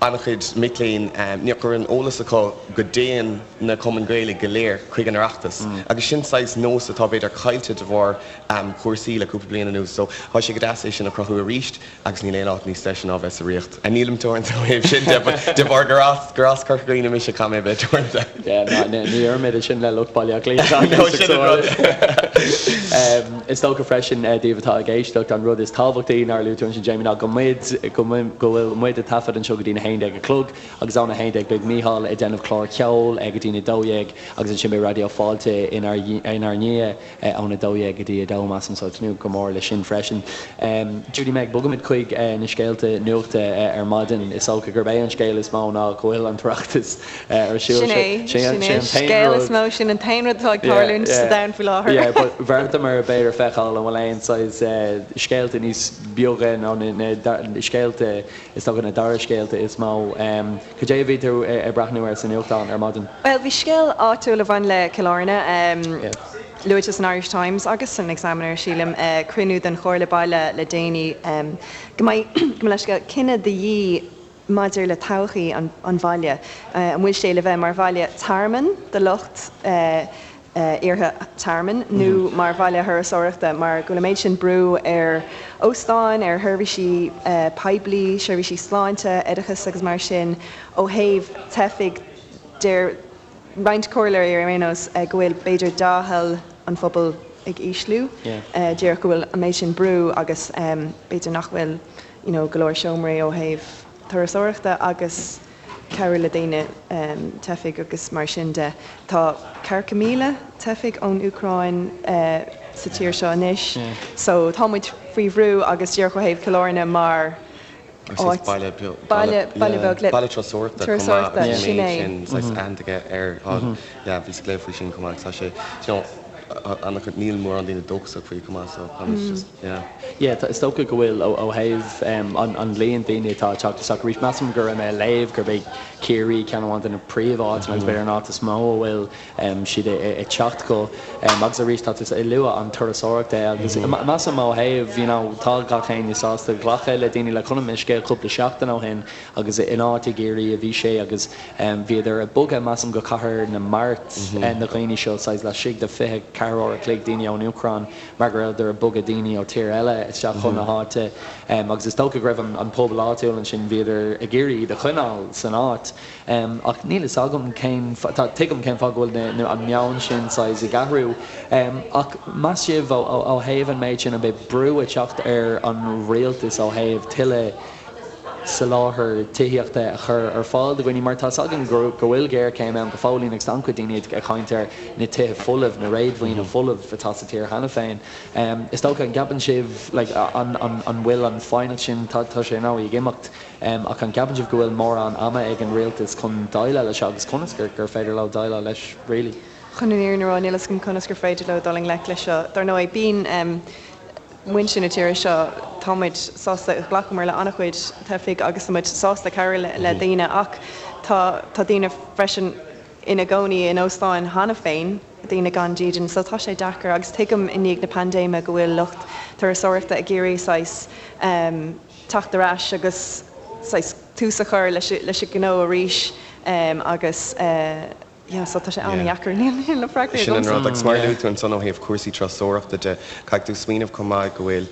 an-chuid mic léinn nach raibh an eolas acu go dtéann na cumainn Gaeilge go léir chuig an Oireachtas agus sin saghas nós atá b'fhéidir caillte de bharr cúrsaí le cúpla bliain anuas so tá sé go deas é sin a chruthú arís. Agus níl aon áit níos deise ná bheith sa Ríocht. Nílim teoranta ó thaobh sin de, but de bharr gur as, gur as Corca Dhuibhne mise, caithfidh mé a bheith teoranta. Yeah, ná, ní deirimid é sin le lucht Baile Átha Cliath. No, sin an rud. Is dócha freisin, daoibh atá ag éisteacht, an rud is tábhachtaí nár luaigh tú ansin, Jamie, ná go muid, go go bhfuil muid ag taifead anseo go dtí'n 11 a chlog agus ón 11 beidh Mícheál ag déanamh clár ceoil go dtí'n 12 agus ansin beidh Raidió Fáilte inár inár ndiaidh. Ón 12 go dtí 2, measaim, so tnúth go mór leis sin freisin. Judy Meg, bogaimid chuig na scéalta nuachta ar maidin. Is dócha gurb é an scéal is mó ná go bhfuil an tOireachtas ar siúl. Sin é, sin é an scéal is mó, sin an t-aon rud atá ag tarlúint sa domhan faoi láthair. Yeah, but bheartaíomar b'fhéidir feiceáil an bhfuil aon saghas scéalta níos beoga nó na scéalta, is dócha na dara scéalta is mó. Cad é a bhí tú ag breathnú air sa nuachtán ar maidin? Bhuel, bhí scéal áitiúil a bhain le Cill Airne luaite san Irish Times agus san Examiner, sílim, cruinniú den Chomhairle Baile le déanaí go mbeidh, gabh mo leithscéal, cinneadh de dhíth maidir le todhchaí an bhaile. An bhfuil sé le bheith mar bhaile tearmainn do lucht. Iarrtha tearmainn nó mar bhaile thurasóireachta mar go bhfuil an méid sin brú ar óstáin, ar sheirbhísí poiblí, seirbhísí sláinte, oideachas agus mar sin. Ó thaobh teifigh, deir roinnt comhairleoirí ar aon nós go bhfuil b'fhéidir dea-thoil an phobail ag ísliú, díreach go bhfuil an méid sin brú agus b'fhéidir nach bhfuil you know go leor seomraí ó thaobh turasóireachta agus cabhrú le daoine, teifigh agus mar sin de. Tá ceathracha 1,000 teifigh ón Úcráin sa tír seo anois so tá muid faoi bhrú agus díreach ó thaobh Chill Airne mar áit, baile beag le. Baile turasóireachta chomh maith agus an méid sin saghas aitheanta aige ar, yeah bhíos ag léamh faoi sin chomh maith agus tá sé, you know, an-chuid, níl mórán daoine dóchasach faoi chomh maith so tá muid just, yeah. Yeah, is dócha go bhfuil ó thaobh an líon daoine atá ag teacht isteach arís. Measaim go raibh mé ag léamh gurb é Ciarraí ceann amháin de na príomháiteanna agus b'fhéidir an áit is mó a bhfuil siad ag teacht go. Agus arís tá tú ag lua an turasóireacht é agus measaim ó thaobh, you know, tá gach éinne sásta glacadh le daoine like chonaic mé scéal cúpla seachtain ó shin agus in áit i gCiarraí a bhí sé agus bhíodar ag bogadh measaim go Cathair na Mart na daoine seo saghas laistigh de 24 uair a chloig daoine ón Úcráin mar go rabhadar ag bogadh daoine ó tír eile isteach chun na háite agus is dócha go raibh an pobal áitiúil ansin, bhíodar ag iarraidh iad a choinneáil san áit. Ach níl fhios agam cén, tuigim cén fáth go bhfuil an meon sin saghas ag athrú. Ach meas sibh ó thaobh an méid sin, an mbeidh brú ag teacht ar an rialtas ó thaobh tuilleadh soláthar tithíochta a chur ar fáil do dhaoine mar tá 's againn go bhfuil géarchéim ann go fóillín agus tá an-chuid daoine ag caint ar na tithe folamh, na réadmhaoine folamh atá sa tír cheana féin. Is dócha, an gceapann sibh like an an bhfuil an foighneacht sin, tá sé ar ndóigh ag imeacht ach an gceapann sibh go bhfuil mórán ama ag an rialtas chun déileáil leis seo agus conas gur gur féidir leo déileáil leis really? Chun an fhírinne a rá, níl 'fhios agam conas gur féidir leo dul i ngleic leis seo. Dar ndóigh, bíonn. muintir na tíre seo, tá muid sásta, ghlacamar le an-chuid teifigh agus tá muid sásta cabhrú le daoine ach tá tá daoine freisin ina gcónaí in óstáin cheana féin, daoine gan dídean, so tá sé deacair agus tuigim i ndiaidh na paindéime go bhfuil lucht turasóireachta ag iarraidh saghas teacht ar ais agus saghas tús a chur leis leis an gnó arís agus Yeah, so tá sé an-dheacair, níl na freagraí Sin an rud, agus mar a luaigh tú ansan ó thaobh cúrsaí turasóireachta de, caithfidh tú smaoineamh chomh maith go bhfuil,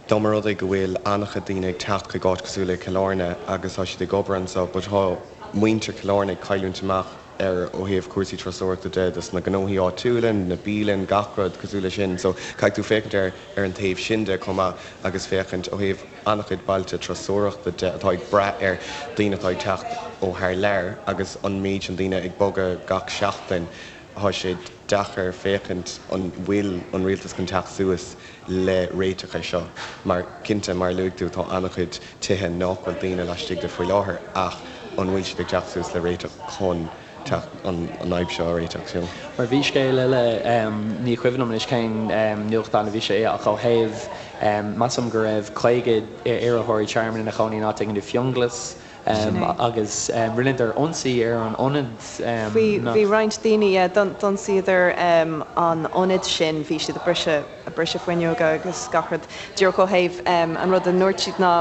dá mba rud é go bhfuil an-chuid daoine ag teacht chuig áit cosúil le Cill Airne agus tá siad ag obair anso but tá muintir Chill Airne ag cailliúint amach ar ó thaobh cúrsaí turasóireachta de dos na gnóthaí áitiúla, na bialann, gach rud cosúil le sin. So caithfidh tú féachaint ar ar an taobh sin de chomh maith agus féachaint ó thaobh an-chuid bailte turasóireachta de atá ag brath ar daoine atá ag teacht ó thar lear agus an méid sin daoine ag bogadh gach seachtain, tá sé deacair féachaint an bhfuil an rialtas chun teacht suas le réiteach ar seo mar cinnte, mar a luaigh tú, tá an-chuid tithe nach bhfuil daoine laistigh de faoi láthair ach an bhfuil siad ag teacht suas le réiteach chun teacht an fhadhb seo a réiteach, you know. Mar bhí scéal eile, ní cuimhin liom anois cén nuachtán a bhí sé i, ach ó thaobh, measaim go raibh 50 iarrthóirí tearmainn ina chónaí in áit éigin i bhFionnghlas agus rinneadar ionsaí ar an ionad. Bhí, bhí roinnt daoine, yeah, d'ionsaíodar an ionad sin, bhí siad ag briseadh, ag briseadh fuinneoga agus gach rud. Díreach ó thaobh, an rud a ndúirt siad ná,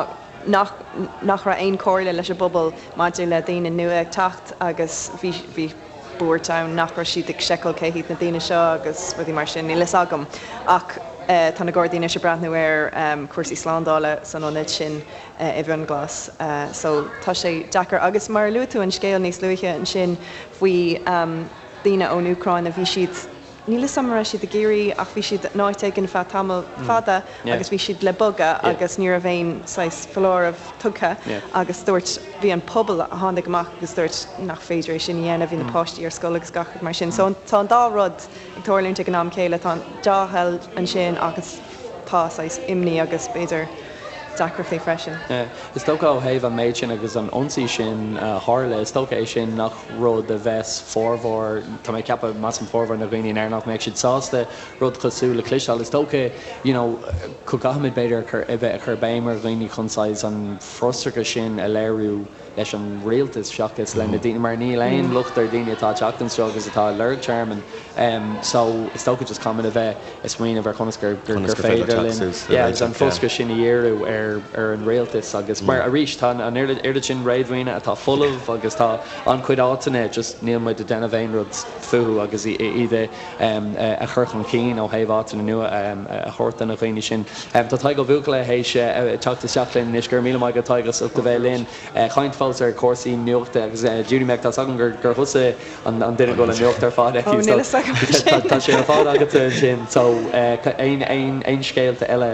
nach nach raibh aon chomhairle leis an bpobal maidir le daoine nua ag teacht agus bhí bhí buairt ann nach raibh siad ag seiceáil cé hiad na daoine seo agus rudaí mar sin, níl fhios agam. Ach tá na Gardaí anois ag breathnú ar cúrsaí slándála san ionad sin i bhFionnghlas. So tá sé deacair. Agus mar a luaigh tú an scéal níos luaithe ansin faoi daoine ón Úcráin a bhí siad, Níl 'fhios a'm an raibh siad i gCiarraí ach bhí siad in áit éigin feadh tamall fada agus bhí siad le bogadh agus ní raibh aon saghas foláireamh tugtha agus dúirt, bhí an pobal a tháinig amach agus dúirt nach féidir é sin a dhéanamh, bhí na páistí ar scoil agus gach rud mar sin. So tá an dá rud ag tarlúint ag an am céile, tá an dea-thoil ansin agus tá saghas imní agus b'fhéidir deacrachtaí freisin. Is dócha ó thaobh an méid sin agus an ionsaí sin a tharla, is dócha é sin nach rud a bheas formhór, tá mé ag ceapadh, measaim formhór na dhaoine in Éirinn nach mbeadh siad sásta rud cosúil le cloisteáil. Is dócha you know go gcaithfimid b'fhéidir a chur, a bheith ag cur béim ar dhaoine chun saghas an frustrachas sin a léiriú leis an rialtas seachas le na daoine mar níl aon locht ar daoine atá ag teacht anseo agus atá ag lorg tearmainn so is dócha just caithfimid a bheith ag smaoineamh ar conas gur gur féidir linn yeah agus an frustrachas sin a dhíriú ar. ar ar an rialtas agus mar arís tá an oiread sin réadmhaoine atá folamh agus tá an-chuid áiteanna just níl muid ag déanamh aon rud fúthu agus iad a chur chun cinn ó thaobh áiteanna nua a thabhairt do na dhaoine sin. Tá Tadhg Ó Buachalla théis teacht isteach linn anois. Go raibh míle maith agat Tadhg as ucht a bheith linn. Caint fós ar chúrsaí nuachta agus Judy Meg tá 's agam gur thusa an duine go bhfuil an nuacht ar fad aici so tá sé ar fad agatsa ansin so aon scéalta eile?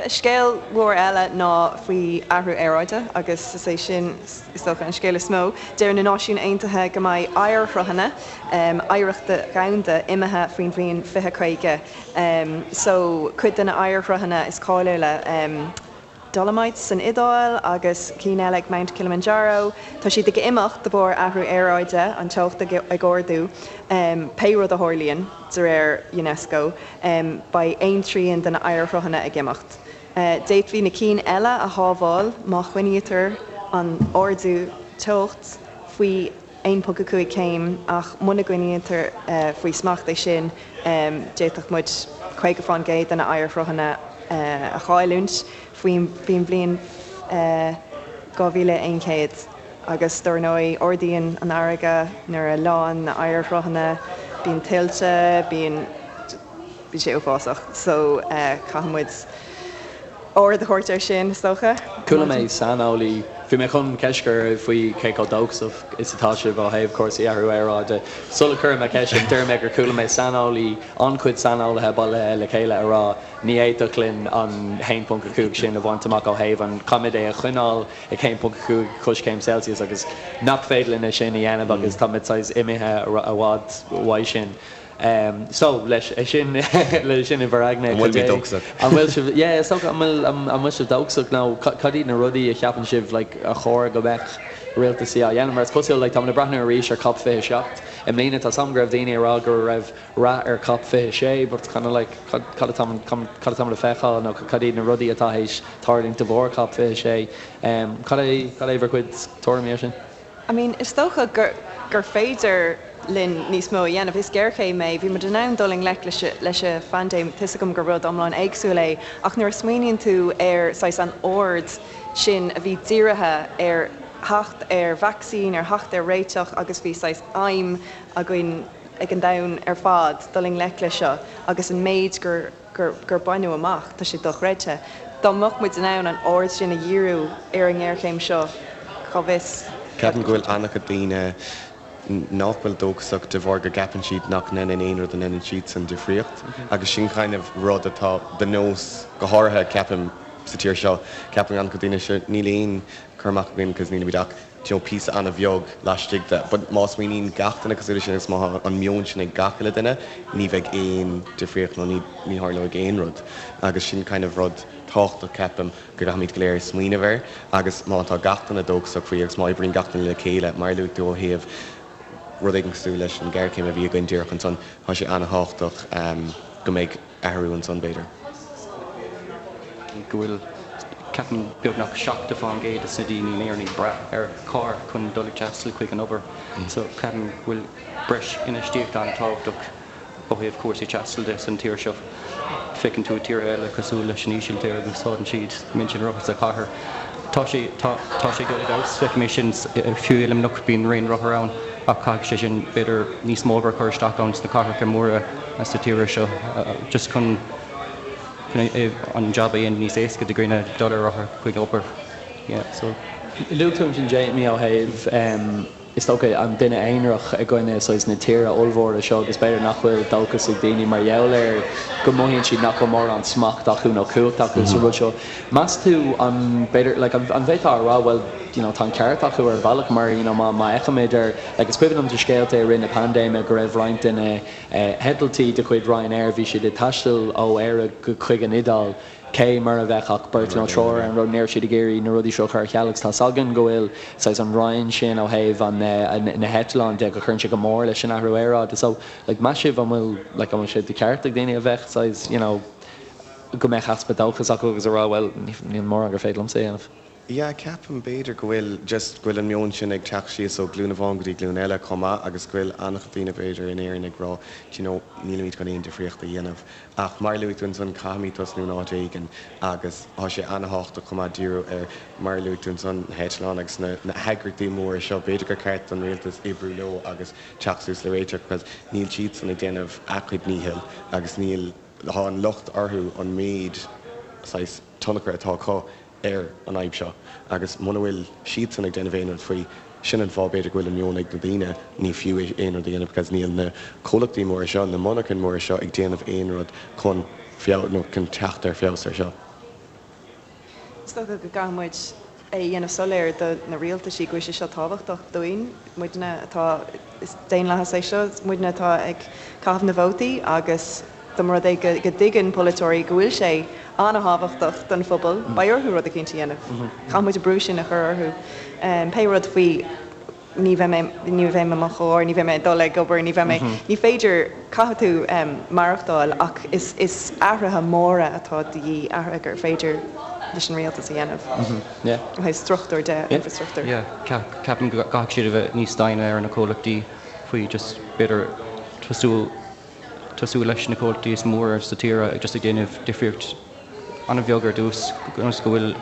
Scéal mhór eile ná faoi athrú aeráide agus is é sin is dócha an scéal is mó. Deir na Náisiúin Aontaithe go mbeidh oighearshruthanna oidhreachta dhomhanda imithe faoin bhliain 2050. So cuid de na oighearshruthanna is cáiliúla, Dolomites san Iodáil agus cinn eile ag Mount Kilimanjaro, tá siad ag imeacht de bharr athrú aeráide, an teocht ag ardú. Pé rud a tharlaíonn, de réir Unesco, beidh aon trian de na oighearshruthanna ag imeacht. D'fhéadfaí na cinn eile a shábháil má choinnítear an ardú teocht faoi 1.5 céim ach muna gcoinnítear faoi smacht é sin, d'fhéadfadh muid 50% de na oighearshruthanna a chailliúint faoin bhliain 2100. Agus dár ndóigh, ardaíonn an fharraige nuair a leánn na oighearshruthanna, bíonn tuilte, bíonn. bíonn sé uafásach. So caithfidh muid aird a thabhairt air sin, is dócha. Chuala mé saineolaí, bhí mé chun ceist a chur oraibh faoi cé chomh dóchasach is atá sibh ó thaobh cúrsaí athrú aeráide. Sula gcuirfidh mé ceist sin, deir mé gur chuala mé saineolaí, an-chuid saineolaithe bailithe le chéile a rá ní fhéadfadh linn an 1.5 sin a bhaint amach ó thaobh an, caithfimid é a choinneáil ag 1.5 coiscéim Celsius agus nach féidir linn é sin a dhéanamh agus táimid saghas imithe i bhfad uaidh sin. So, leis sin, leis sin i bhur aigne, An bhfuil mé dóchasach? An bhfuil sibh, yeah, is dócha, an bhfuil, an bhfuil sibh dóchasach nó cad iad na rudaí a cheapann sibh, like, a chóir go mbeadh rialtasaí á dhéanamh? Mar is cosúil, like, táimid ag breathnú arís ar COP 27 i mbliana, tá 's agam go raibh daoine ag rá go raibh rath ar COP 26 but kind of like, cad, cad atá, cad atáimid ag feiceáil nó cad iad na rudaí atá théis tarlúint de bharr COP 26? Cad é, cad é bhur gcuid tuairimí ar sin? I mean, is dócha gur, gur féidir linn níos mó a dhéanamh. Is géarchéim é. Bhí muid in ann dul i ngleic leis, leis an phaindéim. Tá 'fhios agam gur rud iomlán éagsúil é, ach nuair a smaoiníonn tú ar saghas an aird sin a bhí dírithe ar theacht ar vacsaín, ar theacht ar réiteach agus bhí saghas aidhm againn ag an domhan ar fad dul i ngleic leis seo agus an méid gur, gur, gur baineadh amach, tá sé dochreidte. Dá mbeadh muid in ann an aird sin a dhíriú ar an ngéarchéim seo, cá bhfios. Ceapaim go bhfuil an-chuid daoine nach bhfuil dóchasach de bharr go gceapann siad nach ndéanann aon rud a ndéanann siadsan difríocht agus sin kind of rud atá de nós, go háirithe ceapaim sa tír seo, ceapann an-chuid daoine sure níl aon cur amach againn cos nílimid ach you know píosa an-bheag laistigh de but má smaoiníonn gach duine cosúil leis sin agus má tá an meon sin ag gach uile duine ní bheidh aon difríocht nó ní ní tharlóidh aon rud agus sin kind of rud tábhachtach ceapaim go gcaithfimid go léir smaoineamh air agus má tá gach duine dóchasach faoi agus má oibríonn gach duine le chéile mar a luaigh tú ó thaobh rud éigin cosúil leis an ghéarchéim a bhí againn díreach ansan tá sé an-thábhachtach go mbeidh athrú ansan b'fhéidir. go bhfuil, ceapaim, beagnach 70% de na daoine in Éirinn ag brath ar charr chun dul ag taisteal chuig an obair. So ceapaim go bhfuil breis infheistíochta an-tábhachtach ó thaobh cúrsaí taistil de san tír seo. Feiceann tú i tíortha eile cosúil leis an Ísiltír go úsáideann siad roinnt an rothar sa chathair. Tá sé, tá, tá sé ag dul i bhfeabhas, feicim é sin fiú i Luimneach bíonn raon rothar ann ach caithfidh sé sin b'fhéidir níos mó obair a chur isteach ann sna cathracha móra sa tír seo just chun an jab a dhéanamh níos éasca do dhaoine dul ar rothar chuig obair. Yeah, so. Luaigh tú ansin Jamie ó thaobh is dócha an duine aonarach i gcoinne saghas na tíre ollmhóire seo agus b'fhéidir nach bhfuil dóchas ag daoine mar gheall ar go mothaíonn siad nach bhfuil mórán smacht acu nó cumhacht acu sa rud seo. Meas tú an b'fhéidir like an bhféadfá a rá bhuel you know tá an ceart acu ar bhealach mar you know má má fheicimid ar like is cuimhin liom de scéalta i rith na paindéime go raibh roinnt de na heitiltí de chuid Ryanair bhí siad ag taisteal ó Éire go chuig an Iodáil cé mura bheadh ach beirt nó triúr ar an rud, ní raibh siad ag iarraidh na rudaí seo a chur ar ceal agus tá's againn go bhfuil saghas an raon sin ó thaobh an na heitleáin de go chuireann sé go mór leis an athrú aeráide. So like meas sibh an bhfuil like an bhfuil sé de cheart ag daoine a bheith saghas you know go mbeadh easpa dóchas acu agus a rá bhuel níl mórán gur féidir liomsa a dhéanamh. Yeah, ceapaim b'fhéidir go bhfuil just go bhfuil an meon sin ag teacht síos ó glúin amháin go dtí glúin eile chomh maith agus go bhfuil an-chuid daoine b'fhéidir in Éirinn ag rá do you know nílimid chun aon difríocht a dhéanamh. Ach mar a luaigh tú ansan caithfimid tosnú in áit éigin agus tá sé an-thábhachtach chomh maith díriú ar mar a luaigh tú ansan na heitleáin agus na na heagraíochtaí móra seo b'fhéidir gur ceart don rialtas oibriú leo agus teacht suas le réiteach because níl siadsan ag déanamh a gcuid díchill agus níl tá an locht orthu an méid saghas tionchar atá acu ar an fhadhb seo agus muna bhfuil siadsan ag déanamh aon rud faoi, sin an fáth b'fhéidir go bhfuil an meon ag na daoine, ní fiú aon rud a dhéanamh because níl na comhlachtaí móra seo, na monarchain móra seo ag déanamh aon rud chun feabhas nó chun teacht ar feabhas ar seo. Is dócha go gcaithfidh muid é a dhéanamh soiléir do na rialtaisí go bhfuil sé seo tábhachtach dúinn, muidne atá, is daonlathas é seo, muidne atá ag caitheamh na vótaí agus dá mba rud é go dtuigeann polaiteoirí go bhfuil sé an-thábhachtach don phobal, beidh orthu rud eicínt a dhéanamh. Caithfidh muid an brú sin a chur orthu. Pé rud faoi ní bheidh mé, ní bheidh mé i mo charr, ní bheidh mé ag dul ag obair, ní bheidh mé, ní féidir, caithfidh tú maireachtáil ach is, is athruithe móra atá de dhíth, athruithe gur féidir leis an rialtas a dhéanamh ó thaobh struchtúr de, infreastruchtúr. Yeah, ceapaim go gcaithfidh siad a bheith níos déine ar na comhlachtaí faoi just b'fhéidir tosú tosú leis na comhlachtaí is mór sa tír just ag déanamh difríocht an-bheag ar dtús ionas go bhfuil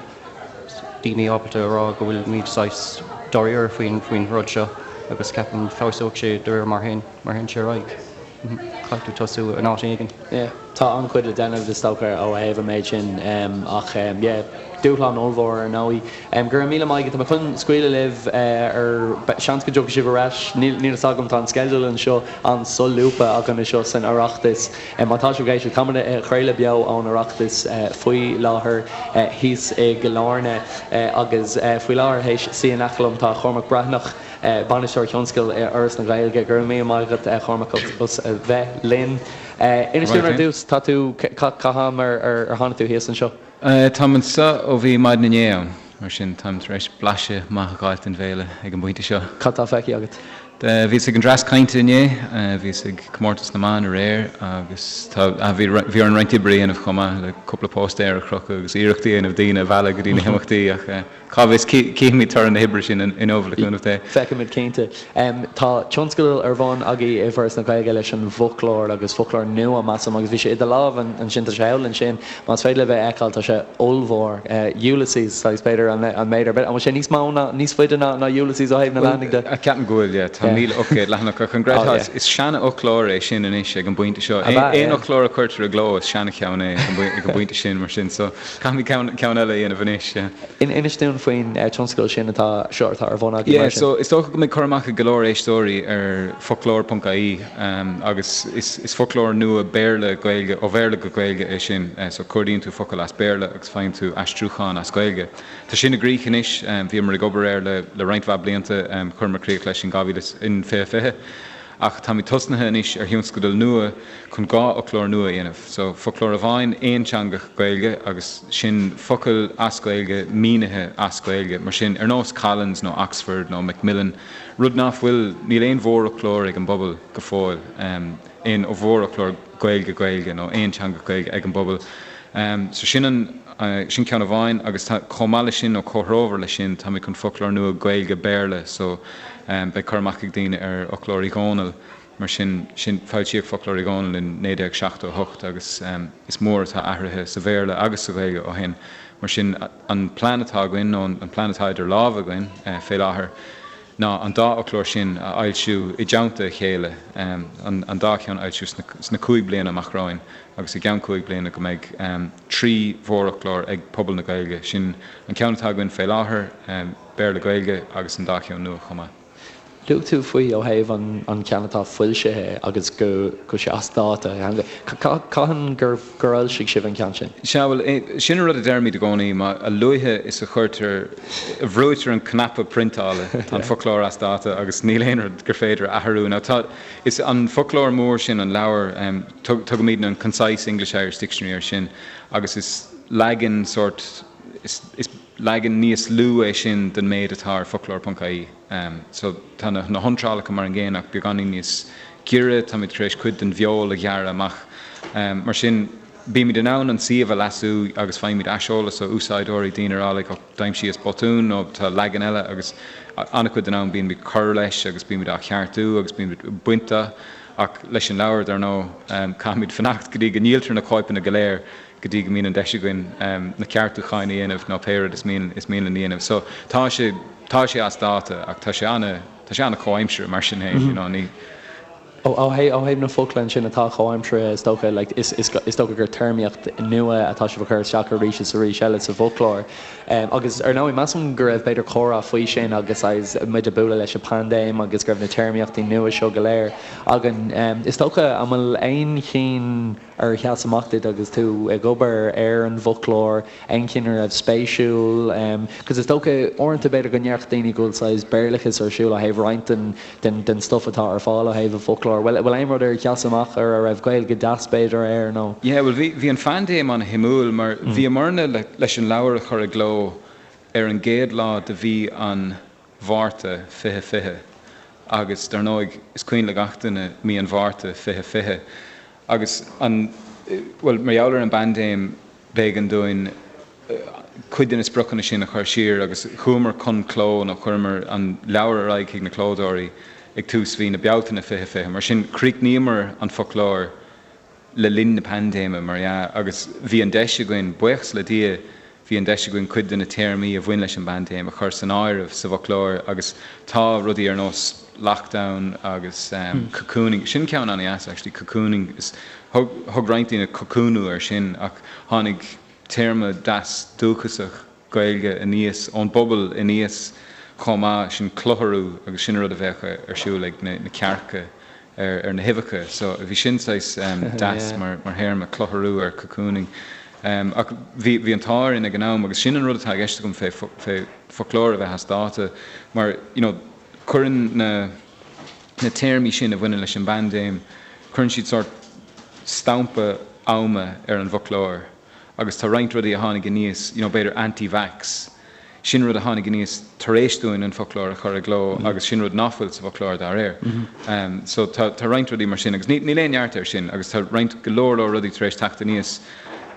daoine ábalta a rá go bhfuilimid saghas dáiríre faoin faoin rud seo agus ceapaim feabhsóidh sé de réir mar théann mar théann sé ar aghaidh. Caithfidh tú tosú in áit éigin. Yeah, tá an-chuid le déanamh is dócha ó thaobh an méid sin ach yeah, dúshlán ollmhór ar ndóigh. Go raibh míle maith agat. Tá mé chun scaoileadh libh ar seans go dtiocfaidh sibh ar ais. Níl fhios agam, tá an sceideal anseo an-solúbtha againn anseo san Oireachtas. Má tá sibh ag éisteacht, táimid ag craoladh beo ón Oireachtas faoi láthair thíos i gCill Airne agus faoi láthair théis suí in aice liom tá Cormac Breathnach, Bainisteoir Tionscail i Fhoras na Gaeilge. Go raibh míle maith agat a Chormaic as a bheith linn. Inis dúinn ar dtús, tá tú, cá ham ar tháinig tú thíos anseo? Táim anseo ó bhí maidin inné ann, mar sin táim tar éis blaiseadh maith a dh'fháilt den bhféile ag an bpointe seo. Cad tá feicthe agat? Bhíos ag an dreas cainte inné, bhíos ag comórtas na mban aréir agus tá, bhí, bhí orainn roinnt oibre a dhéanamh chomh maith le cúpla póstaer a chrochadh agus iarracht a dhéanamh daoine a mhealladh go dtí na himeachtaí ach Cá bhfios, cífimid toradh na hoibre sin inniu, le cúnamh Dé. Feicfimid cinnte. Tá tionscadal ar bun agaibh i bhForas na Gaeilge leis an bhfoclóir agus foclóir nua, measaim, agus bhí sé i do lámh ansin, tá sé thall ansin, más féidir libh é a fheiceáil, tá sé ollmhór. Ulysses, saghas, b'fhéidir, an méid ar bith. An bhfuil sé níos mó ná, níos faide ná Ulysses ó thaobh na leathanaigh de? Ceapaim go bhfuil, yeah. Tá 1,800 leathanach ach an gcreidfeá, is seanfhoclóir é sin anois ag an bpointe seo. Aon fhoclóir a chuirtear i gcló, is seanacheann é ag an bpointe sin, mar sin. So, Caithfimid ceann eile a dhéanamh anois, yeah. Inis dúinn faoin tionscadal sin atá seo atá ar bun agaibh mar sin. Yeah, so is dócha go mbeidh cur amach ag go leor éisteoirí ar foclóir ponc ie agus is foclóir nua Béarla, Gaeilge, ó Bhéarla go Gaeilge é sin. So cuardaíonn tú focal as Béarla agus faigheann tú aistriúchán as Gaeilge. Tá sin i gcrích anois, bhíomar ag obair air le roinnt mhaith blianta, chuireamar críoch leis in 2020. Ach táimid tosnaithe anois ar thionscadal nua chun 2 fhoclóir nua a dhéanamh. So, foclóir amháin aonteangach Gaeilge agus sin focail as Gaeilge mínithe as Gaeilge. Mar sin, ar nós Collins nó Oxford nó Macmillan, rud nach bhfuil, níl aon mhórfhoclóir ag an bpobal go fóill, aon mhórfhoclóir Gaeilge-Gaeilge nó aonteangach Gaeilge ag an bpobal. So sin an, sin ceann amháin agus tá, chomh maith leis sin nó comhthreomhar leis sin, táimid chun foclóir nua Gaeilge-Béarla so beidh cur amach ag daoine ar Fhoclóir Uí Dhónaill mar sin, sin, foilsíodh Foclóir Uí Dhónaill in 1978 agus is mór atá athraithe sa Bhéarla agus sa Ghaeilge ó shin. Mar sin an plean atá againn nó an plean atá idir lámha againn fé láthair ná an dá fhoclóir sin a fhoilsiú i dteannta a chéile, an dá cheann a fhoilsiú sna 5 bliana amach romhainn. agus i gceann 5 bliana go mbeidh 3 mhórfhoclóir ag pobal na Gaeilge, sin an ceann atá againn fé láthair, Béarla-Gaeilge, agus an dá cheann nua chomh maith. Luaigh tú faoi ó thaobh an ceann atá foilsithe agus go bhfuil sé as dáta. Cathain gur fhoilsigh sibh an ceann sin? Sea, bhuel, sin an rud a deirimid i gcónaí, má, a luaithe is a chuirtear, a bhrúitear an cnaipe priontála, tá an foclóir as dáta agus níl aon rud gur féidir a athrú. Now tá, is an foclóir mór sin, an leabhar, Tugaimidne an Concise English-Irish Dictionary air sin agus is leagan sórt, is leagan níos lú é sin den méid atá ar foclóir ponc ie. So tá na hiontrálacha mar an gcéanna ach beagáinín níos giorra, táimid tar éis cuid den bhfeoil a ghearradh amach. Mar sin. Bímid in ann an suíomh a leasú agus faighimid aiseolas ó úsáideoirí, daoine ag rá like, oh, d'aimsíos botún nó tá leagan eile agus an-chuid den am bímid ag cur leis agus bímid á cheartú agus bímid ag baint de ach leis an leabhar, dar ndóigh, caithfimid fanacht go dtí go ndíoltar na cóipeanna go léir go dtí go mbíonn an deis againn na ceartúcháin a dhéanamh nó pé rud is mian is mian linn a dhéanamh. So tá sé tá sé as dáta ach tá sé ana tá sé ana comhaimseartha mar sin féin, you know, ní. Ó thaobh na focla ansin atá comhaimseartha, is dócha, like, is is dócha gur téarmaíocht nua atá sibh a chur isteach arís is arís eile sa bhfoclóir. Agus ar ndóigh, measaim go raibh b'fhéidir comhrá faoi sin agus agus muid ag bualadh leis an bpaindéim agus go raibh na téarmaíochtaí nua seo go léir againn. Is dócha, an bhfuil aon chinn ar sheas amach duit agus tú ag obair ar an bhfoclóir, aon chinn a raibh spéisiúil? Cos is dócha uaireanta b'fhéidir go ndéarfadh daoine go bhfuil saghas Béarlachas ar siúl ó thaobh roinnt den den den stuff atá ar fáil ó thaobh an bhfoclóir. Bhfuil bhfuil aon rud ar sheas amach ar a raibh Gaeilge deas b'fhéidir air nó? Yeah, bhuel bhí bhí an phaindéim an-shuimiúil mar bhíomarna le leis an leabhar a chur i gcló ar an gcéad lá de mhí an Mhárta 2020 agus dar ndóigh is cuimhin le gach duine mí an Mhárta 2020 Agus an, bhuel, mar gheall ar an bpaindéim, b'éigean dúinn cuid de na spriocanna sin a chur siar agus chuamar chun cló nó chuireamar an leabhar ar aghaidh chuig na clódóirí ag tús mhí na Bealtaine 2020. Mar sin, chríochnaíomar an foclóir le linn na paindéime, mar dhea, agus bhí an deis againn, buíochas le Dia, Bhí an deis againn cuid de na téarmaí a bhain leis an bpaindéim a chur san áireamh sa bhfoclóir agus tá rudaí ar nós lockdown agus cocooning, sin ceann an-dheas actually, cocooning, is thug thug roinnt daoine cocúnú air sin ach tháinig téarma deas dúchasach Gaeilge aníos ón bpobal aníos chomh maith, sin clutharú agus sin an rud a bheadh ar siúl ag na cearca. ar na huibheacha. So bhí sin saghas deas mar théarma, clutharú ar cocooning. Ach bhí bhí an t-ádh orainn ag an am agus sin an rud atá i gceist agam fé fé foclóir a bheith as dáta mar you know cuireann na na téarmaí sin a bhaineann leis an bpaindéim, cuireann siad sórt stampa ama ar an bhfoclóir. Agus tá roinnt rudaí a tháinig aníos, you know, b'fhéidir anti-vax, sin rud a tháinig aníos tar éis dúinn an foclóir a chur i gcló agus sin rud nach bhfuil sa bhfoclóir dá réir. So tá tá roinnt rudaí mar sin agus ní níl aon neart air sin agus tá roinnt go leor leor rudaí tar éis teacht aníos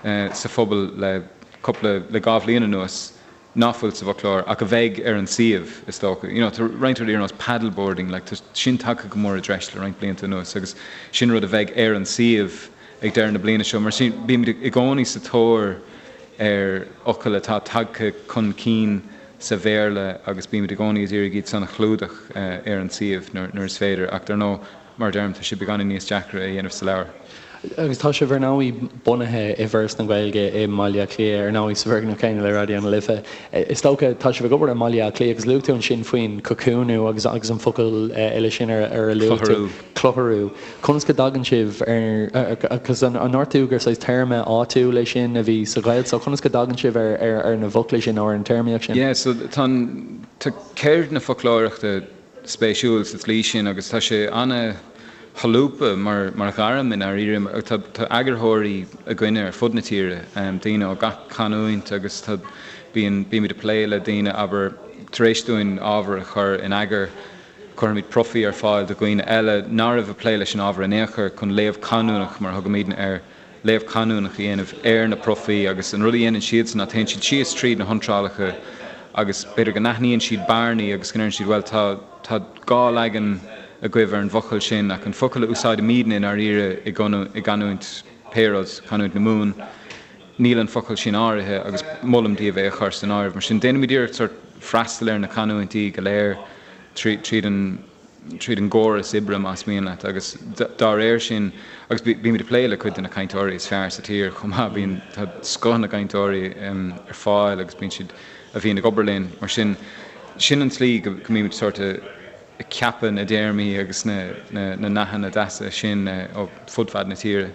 sa phobal le cúpla le dhá bhliain anuas nach bhfuil sa bhfoclóir ach a bheidh ar an suíomh, is dócha. You know, tá roinnt rudaí ar nós paddleboarding, like, tá sin tagtha go mór i dtreis le roinnt blianta anuas agus sin rud a bheidh ar an suíomh ag deireadh na bliana seo. Mar sin, bímid i gcónaí sa tóir ar fhocail atá tagtha chun cinn sa Bhéarla agus bímid i gcónaí ag iarraidh iad san a chlúdach ar an suíomh nuair is féidir ach dar ndóigh, Mar a deirim, tá sé beagáinín níos deacra a dhéanamh sa leabhar. Agus tá sibh ar ndóigh bunaithe i bhForas na Gaeilge i mBaile Átha Cliath, ar ndóigh sa bhfoirgneamh céanna le Raidió na Life. Is dócha, tá sibh ag obair i mBaile Átha Cliath agus luaigh tú ansin faoin cocúnú agus agus an focal eile sin ar ar a luaigh tú. Clutharú. Conas go dtagann sibh ar, agus an ndúirt tú gur saghas téarma áitiúil é sin a bhí sa Ghaeltacht, so conas go dtagann sibh ar ar ar na bhfocla sin nó ar an téarmaíocht sin? Yeah, so tá an, tá ceird na foclóireachta, spéisiúil sa tslí sin agus tá sé ana-sholúbtha mar mar ghairm i ndáiríre. Tá tá eagarthóirí againne ar fud na tíre, daoine ó gach canúint agus tá bíonn bímid ag plé le daoine abair tar éis dúinn ábhar a chur in eagar cuirimid profaí ar fáil do dhaoine eile nach raibh ag plé leis an ábhar in aon chor chun léamh canúnach mar a thugaimidne air léamh canúnach a dhéanamh ar na profaí agus an rud a dhéanann siadsan ná téann siad síos tríd na hiontrálacha agus b'fhéidir go n-aithníonn siad bearnaí agus go ndeireann siad bhuel tá tá dhá leagan agaibh ar an bhfocal sin ach an focal a úsáidimidne i ndáiríre i i gcanúint pé rud, canúint na Mumhan, níl an focal sin áirithe agus molaim daoibh é a chur san áireamh. Mar sin déanaimid iarracht sort freastal ar na canúintí go léir tríd an tríd an gcóras oibre, más mian leat, agus dá réir sin, agus bímid ag plé le cuid de na cainteoirí is fearr sa tír chomh maith, bíonn, tá scoth na gcainteoirí ar fáil agus bíonn siad, a bhíonn ag obair linn, mar sin, sin an tslí go mbímid sórt ag ceapadh na dtéarmaí agus na nathanna deasa sin ó fud fad na tíre.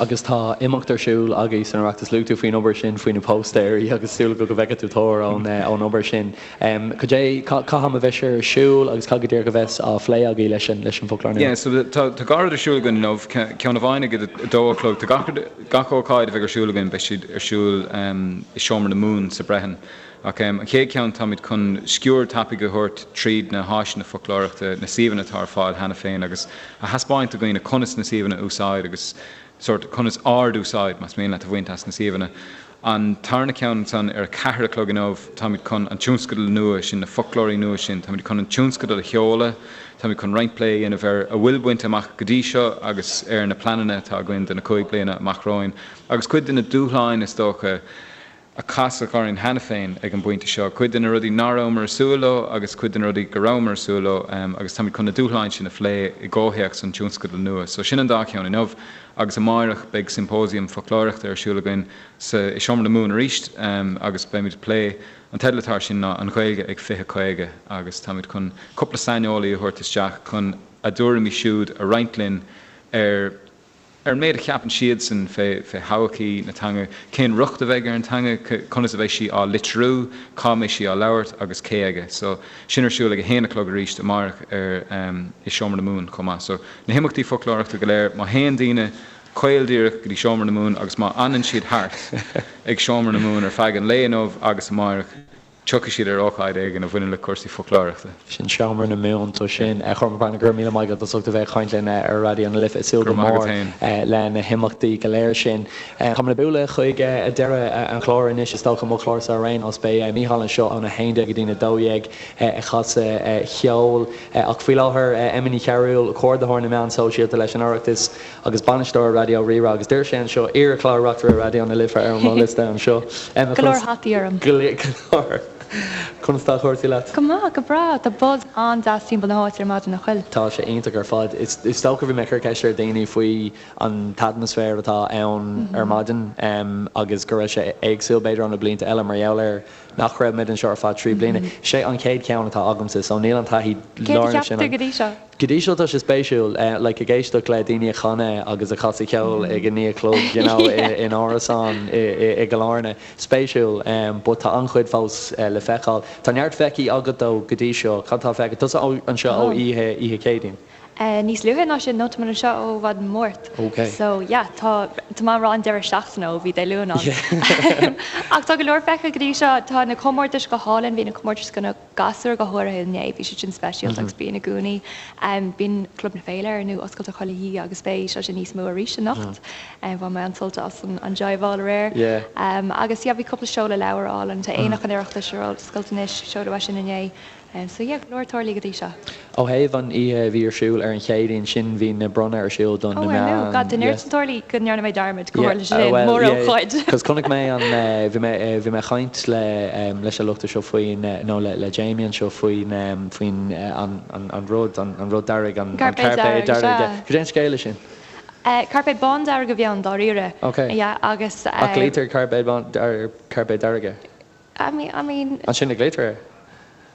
Agus tá imeacht ar siúl agaibh san Oireachtas. Luaigh tú faoin obair sin, faoi na póstaeirí agus súil agam go bhfeicfidh tú tóir ón ón obair sin. Cad é, cá ham a bheidh sé ar siúl agus cad go díreach a bheas á phlé agaibh leis an leis an bhfoclóir nua? Yeah, so tá tá dhá rud ar siúl againn inniu, ceann amháin ag a dó a chlog. Tá gach rud, gach ócáid a bheidh ar siúl againn, beidh siad ar siúl i Seomra na Mumhan sa Brehon. Ach an chéad cheann, táimid chun sciuird tapaidh a thabhairt tríd na háiseanna foclóireachta, na suíomhanna atá ar fáil cheana féin agus a thaispeáint do dhaoine conas na suíomhanna a úsáid agus sórt conas ard-úsáid, más mian leat, a bhaint as na suíomhanna. An tarna ceann ansan ar a ceathair a chlog inniu, táimid chun an tionscadal nua sin, na foclóirí nua sin, táimid chun an tionscadal a sheoladh, táimid chun roinnt plé a dhéanamh ar a bhfuil bainte amach go dtí seo agus ar na pleananna atá againn do na cúig bliana amach romhainn agus cuid de na dúshláin, is dócha, a casadh orainn cheana féin ag an bpointe seo, cuid de na rudaí nach rabhamar ag súil leo agus cuid de na rudaí go rabhamar ag súil leo agus táimid chun na dúshláin sin a phlé i gcomhthéacs an tionscadail nua. So sin an dá cheann inniu agus amáireach beidh symposium foclóireachta ar siúl againn sa i Seomra na Mumhan arís agus beimid ag plé, an teideal atá air sin ná An Ghaeilge ag 2050 agus táimid chun cúpla saineolaí a thabhairt isteach chun a dtuairimí siúd a roinnt linn ar Ar an méid a cheapann siadsan fé thodhchaí na teanga, cén riocht a bheidh ar an teanga, conas a bheidh sí á litriú, cá mbeidh sí á labhairt agus cé aige. So, sin ar siúl ag a haon a chlog arís amárach ar i Seomra na Mumhan chomh maith. So, na himeachtaí foclóireachta go léir, má théann daoine caol díreach go dtí Seomra na Mumhan agus má fhanann siad thart ag Seomra na Mumhan ar feadh an lae inniu agus amárach, Tiocfaidh siad ar ócáid éigin a bhaineann le cúrsaí foclóireachta. Sin Seomra na Mumhan, so sin. A Chormaic Breathnach, go raibh míle maith agat as ucht a bheith ag caint linn ar Raidió na Life. Ag súil go mór le na himeachtaí go léir sin. Táimid ag bualadh chuig deireadh an chláir anois, is dócha, mo chlársa ar aon nós. Beidh Mícheál anseo óna 11 go dtína 12 ag casadh cheoil. Ach faoi láthair, Emma Ní Chearúil, Comhordaitheoir na Meán Sóisialta leis an Oireachtas, Agus bainisteoir Raidió Rí-Rá agus deir sé anseo, iar-chlár reachtaire Raidió na Life ar mo liosta anseo. Emma, Go leor hataí orm. Go leor. Conas tá cúrsaí leat? Go maith, go breá. Tá buzz an-deas timpeall na háite ar maidin, nach bhfuil? Tá sé iontach ar fad. Is dócha bhí mé ag cur ceist ar daoine faoi an t-atmaisféar atá ann ar maidin agus go raibh sé éagsúil b'fhéidir ó na blianta eile mar gheall ar nach raibh muid anseo ar feadh 3 bliana. Sé an chéad cheann atá agamsa so níl an taithí Céard a lárnach cheap sin tú agam. go dtí seo? Go dtí seo tá sé spéisiúil, like ag éisteacht le daoine ag canadh agus ag casadh ceoil ag a naoi a chlog, you know, in árasán i gCill Airne. Spéisiúil, but tá an-chuid fós le feiceáil. Tá neart feicthe agat though go dtí seo. Cad tá feicthe? Tusa anseo ó oíche, oíche Chéadaoin? Níos luaithe ná sin, nó tá mé anseo ó mhaidin Máirt. Ok. So yeah, tá, tá mé ag rá an deireadh seachtaine ó bhí Dé Luain ann. Ach tá go leor feicthe go dtí seo. Tá na comórtais go hálainn, bhí na comórtais do na gasúir go háirithe inné, bhí siad sin speisialta agus bíonn i gcónaí. Bíonn Club na Féile ar ndóigh oscailte chuile oíche agus beidh sé sin níos mó arís anocht. Bhain mé an-sult as an jive-áil aréir. Agus yeah, bhí cúpla seoladh leabhar álainn. Tá Aonach an Oireachtais ar oscailt anois, seoladh é sin inné. So yeah, go leor tarlaithe go dtí seo. Ó thaobh an oíche a bhí ar siúl ar an Chéadaoin sin, bhí na bronnadh ar siúl do na Oh, ar meáin. ndóigh, God, tá neart Yeah. tarlaithe go ndearna mé dearmad go Yeah, tharla sé sin, well, yeah, mórócáid. cos chonaic mé an, bhí mé, bhí mé ag caint le, leis an lucht seo faoin, nó le, le Jamie anseo faoin, faoin, an, an, an rud, an, an rud dearg, an, an Cairpéad cairpéad dearg, dearg, sea. yeah. Cad é an scéal leis sin? Cairpéad bán dearg a bhí ann, dáiríre. Ok. Yeah, agus. Ach glaoitear cairpéad bán, ar cairpéad dearg air. I mean, I mean. Ansin a glaoitear air?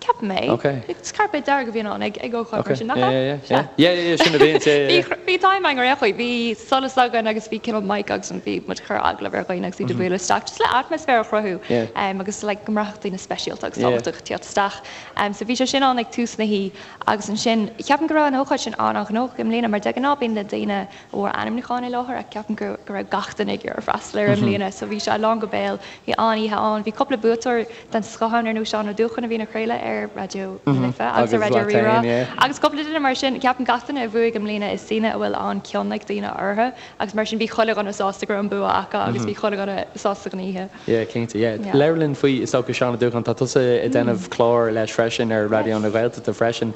Ceapaim é. Ok. Is cairpéad dearg a bhíonn ann ag ag ócáid Ok. mar sin, nach Yeah, ea? yeah, yeah. Yeah, yeah, yeah, sin a bhíonn, yeah, yeah, yeah. Bhí time againn ar aon chaoi. Bhí solas againn agus bhí cineál mic agus bhí muid ag cur agallamh ar dhaoine agus iad ag bualadh isteach just le atmaisféar a chruthú Yeah. agus like go mbraithfeadh daoine speisialta agus Yeah. tábhachtach ag tíocht isteach. So bhí sé sin ann ag tús na hoíche agus ansin ceapaim go raibh an ócáid sin an-an-ghnóthach i mbliana mar de ghnáth bíonn na daoine a fuair ainmniúcháin i láthair ach ceapaim go raibh gach duine ag iarraidh freastal air i mbliana so bhí sé lán go béal. Bhí an-oíche ann. Bhí cúpla buaiteoir den scoth ann ar nós Seán Ó Dúcháin a bhíonn ag craoladh ar Raidió na Life agus ar Raidió Rí-Rá agus cúpla duine mar sin. Ceapaim gach duine a bhuaigh i mbliana is daoine a bhfuil an-cion ag daoine orthu agus mar sin bhí chuile dhuine sásta go raibh an bua acu agus bhí chuile dhuine sásta den oíche. Yeah, cinnte, yeah. Labhair linn faoi, is dócha, Seán Ó Dúcháin, tá tusa ag déanamh clár leis freisin ar Raidió na Gaeltachta freisin.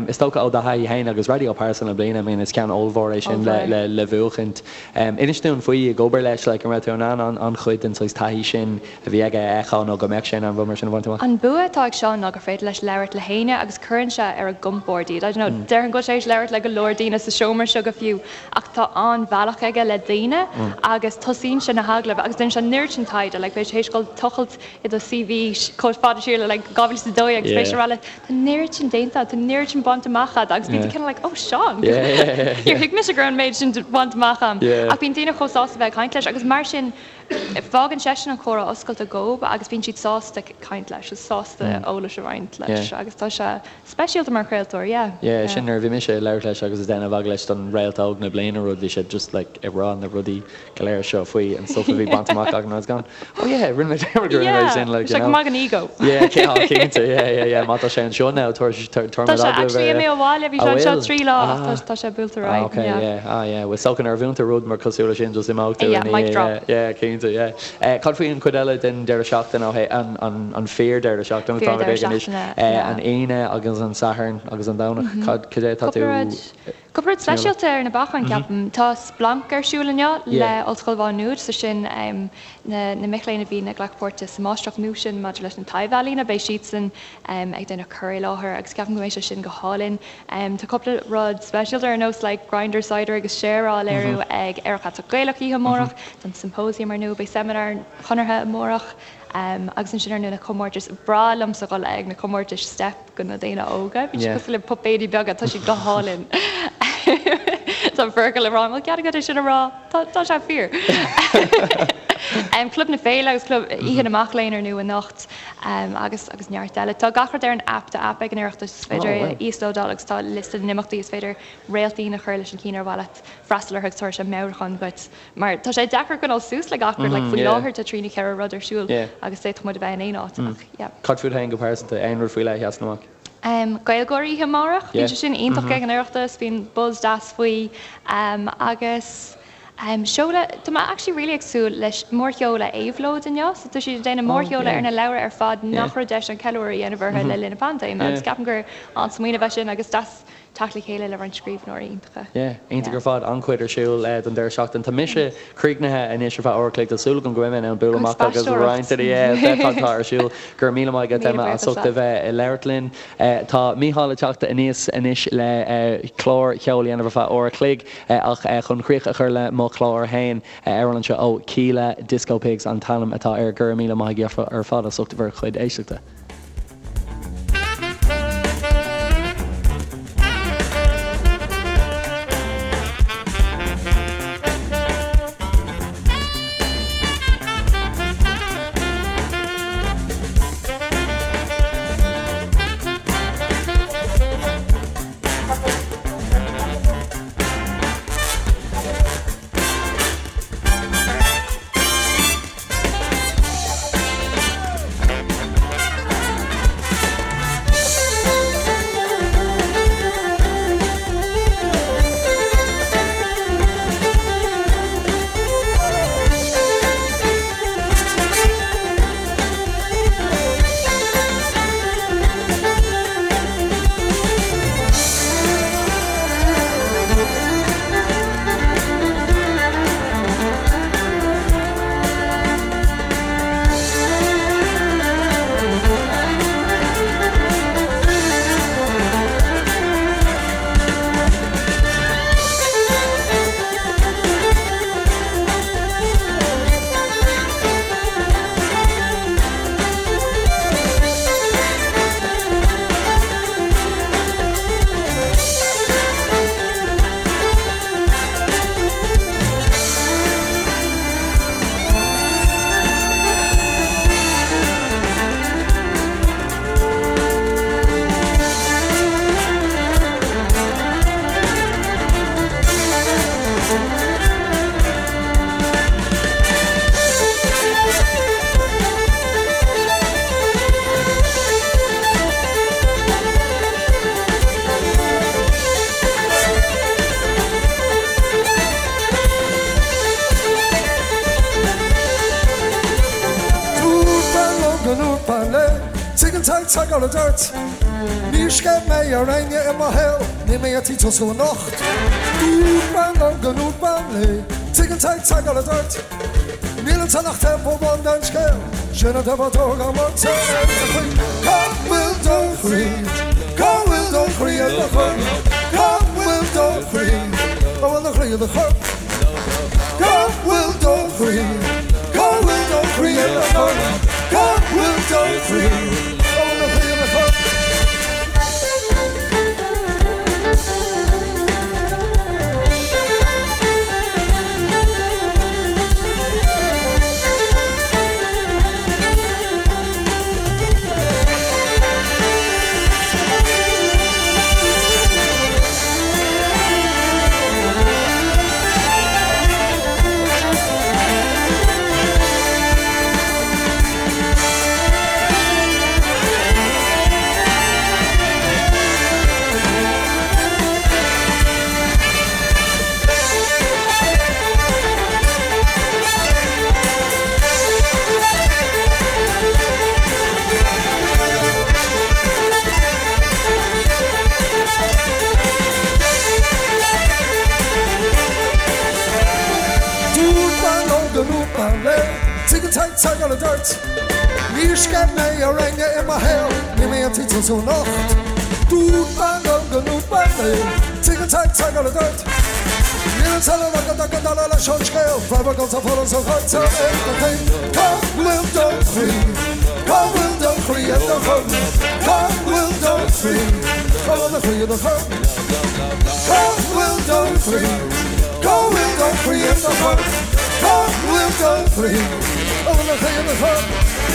Is dócha ó do thaithí féin agus Raidió Pearsa na Bliana, I mean, is ceann ollmhór é sin le le bhuachaint. Inis dúinn faoi ag obair leis, like, an raibh tú in ann an-chuid den saghas taithí sin a bhí aige a fheiceáil nó go mbeadh sé in ann rud mar sin a bhaint amach? An bua atá ag Seán ná gur féidir leis labhairt le héinne agus cuireann sé ar a gcompord iad. I don't know, déarfainn go bhfuil sé tar éis labhairt le go leor daoine sa seomra seo go fiú ach tá an-bhealach aige le daoine agus tosaíonn sé na hagallaimh agus déanann sé an oiread sin taighde, like beidh sé théis dul tochailt i do CV chomh fada siar le like 2012 agus beidh sé ag rá leat tá an oiread sin déanta agat, tá an oiread sin bainte amach agat agus bíonn tú cineál like oh Seán, níor thuig mise go raibh an méid sin bainte amach agam. Ach bíonn daoine chomh sásta bheith ag caint leis agus mar sin fágann seisean an comhrá oscailte dóibh agus bíonn siad sásta caint leis, sásta eolas a roinnt. roinnt leis agus tá sé speisialta mar chraoltóir, yeah. Yeah, sin nuair a bhí mise ag labhairt leis agus ag déanamh agallamh leis don Réalt Óg na bliana rud, bhí sé just like ag rá na rudaí go léir seo faoi an stuff a bhí bainte amach againn and I was going, oh yeah, rinne mé dearmad go rinne mé sin, like, you know. Sé go maith don ego. Yeah, cinnte, yeah, yeah, yeah, má tá sé anseo now, tabharfaidh Tá muid sé agallamh actually air. imithe abhaile, bhí sé Ah, anseo bhfuil? 3 lá ach Ah. tá sé buailte ar Ah, aghaidh, okay, yeah. yeah, ah, yeah, well, is dócha nuair a bhuann tú rud mar cosúil leis sin, just imeoidh tú Yeah, ina mic dhiaidh, drop. yeah, yeah, cinnte, yeah. Eh, cad faoi an chuid eile den deireadh seachtaine ó thaobh an, an, an fíor deireadh seachtaine atá Fíor deireadh ag anois, seachtaine, eh, yeah. an Aoine agus an Satharn agus an Domhnach, cad, cad é atá tú Cúpla rud. Cúpla rud speisialta ar na bacáin, ceapaim. Tá Splanc ar siúl inniu le Ollscoil Mhá Nuad, so sin na mic léinn a bhíonn ag glacadh páirte sa máistreacht nua sin maidir leis na taibh-ealaíona, beidh siadsan ag déanamh cur i láthair agus ceapaim go mbeidh sé sin go hálainn. Tá cúpla rud speisialta ar nós like Grindr Cider agus Share á léiriú ag Aerach Aiteach Gaelach oíche amárach, tá an Symposium ar ndóigh, beidh seimineár an Chonartha amárach agus ansin ar ndóigh na comórtais. Breá liomsa dhul ag na comórtais Steip. do na daoine óga. Bíonn siad cosúil le puipéidí beaga, tá siad go hálainn. Tá Fergal ag rá, an bhfuil cead agat é sin a rá? Tá, tá sé fíor. Club na Féile agus Club Oíche na Mac Léinn ar ndóigh anocht agus agus neart eile. Tá gach rud ar an aip, tá aip ag an Oireachtas, is féidir é a íoslódáil agus tá liosta na n-imeachtaí, is féidir réaltín a chur leis an cinn ar mhaith leat freastal orthu agus tabharfaidh sé meabhrúchán dhuit. Mar tá sé deacair coinneáil suas le gach rud, like faoi láthair tá trí nó ceithre rud ar siúl agus d'fhéadfadh muid a bheith in aon áit ach yeah. Cad fút féin go pearsanta, aon rud faoi leith a sheasann amach? GaelGÁIRÍ oíche amárach, bíonn sé sin iontach ag an Oireachtas, bíonn buzz deas faoi agus seoladh, tá mé actually really ag súil leis mórsheoladh Éabhlóid inniu, so tá siad ag déanamh mórsheoladh ar na leabhra ar fad nach raibh deis an ceiliúradh a dhéanamh orthu le linn na paindéime agus ceapaim gur an-smaoineamh é sin agus deas teacht le chéile le roinnt scríbhneoirí iontacha. Yeah, iontach ar fad, an-chuid ar siúl don deireadh seachtaine. Tá mise críochnaithe anois ar feadh uair a chloig, tá súil agam go mbeidh mé in ann bualadh amach agus roinnt de yeah, bheith cad tá ar siúl. Go raibh míle maith agat Emma as ucht a bheith ag labhairt linn. Tá Mícheál ag teacht aníos anois le clár cheoil a dhéanamh ar feadh uair a chloig ach chun críoch a chur le mo chlár féin, amhrán anseo ó Kíla, Disco Pigs an t-ainm atá air. Go raibh míle maith agaibh ar fad as ucht bhur chuid éisteachta. Dúirt bean liom go ndúirt bean léi, Tuigeann Tadhg Tadhg a dúirt, Níor sceith mé ar éinne i mo shaol, níl mé ar tí tosú anocht. Dúirt bean liom go ndúirt bean léi, Tuigeann Tadhg Tadhg a dúirt, Níl ansan ach taobh amháin den scéal, sin an taobh atá agam ort ar do chroí. Cá bhfuil do chroí? Cá bhfuil do chroí i do chorp? Cá bhfuil do chroí? Cá bhfuil do chroí i do chorp? Cá bhfuil do chroí? Cá bhfuil do chroí i do chorp? Cá bhfuil do chroí? Cá bhfuil do chroí i do chorp? an t-eagal a dtoirt. Níor sceith mé ar éinne i mo shaol, níl mé ar tí tosú anocht. Dúirt bean liom go ndúirt bean léi, Tig an t-eagal a dtoirt. Níl an t-eile agat ach go dara leis an scéal, Raibh agamsa foras a chuirtear ar do chroí. Cá bhfuil do chroí? Cá bhfuil do chroí i do chorp? Cá bhfuil do chroí? Cá bhfuil do chroí i do chorp? Cá bhfuil do chroí? Cá bhfuil do chroí i do chorp? Cá bhfuil do chroí? Cá bhfuil do chroí i do chorp?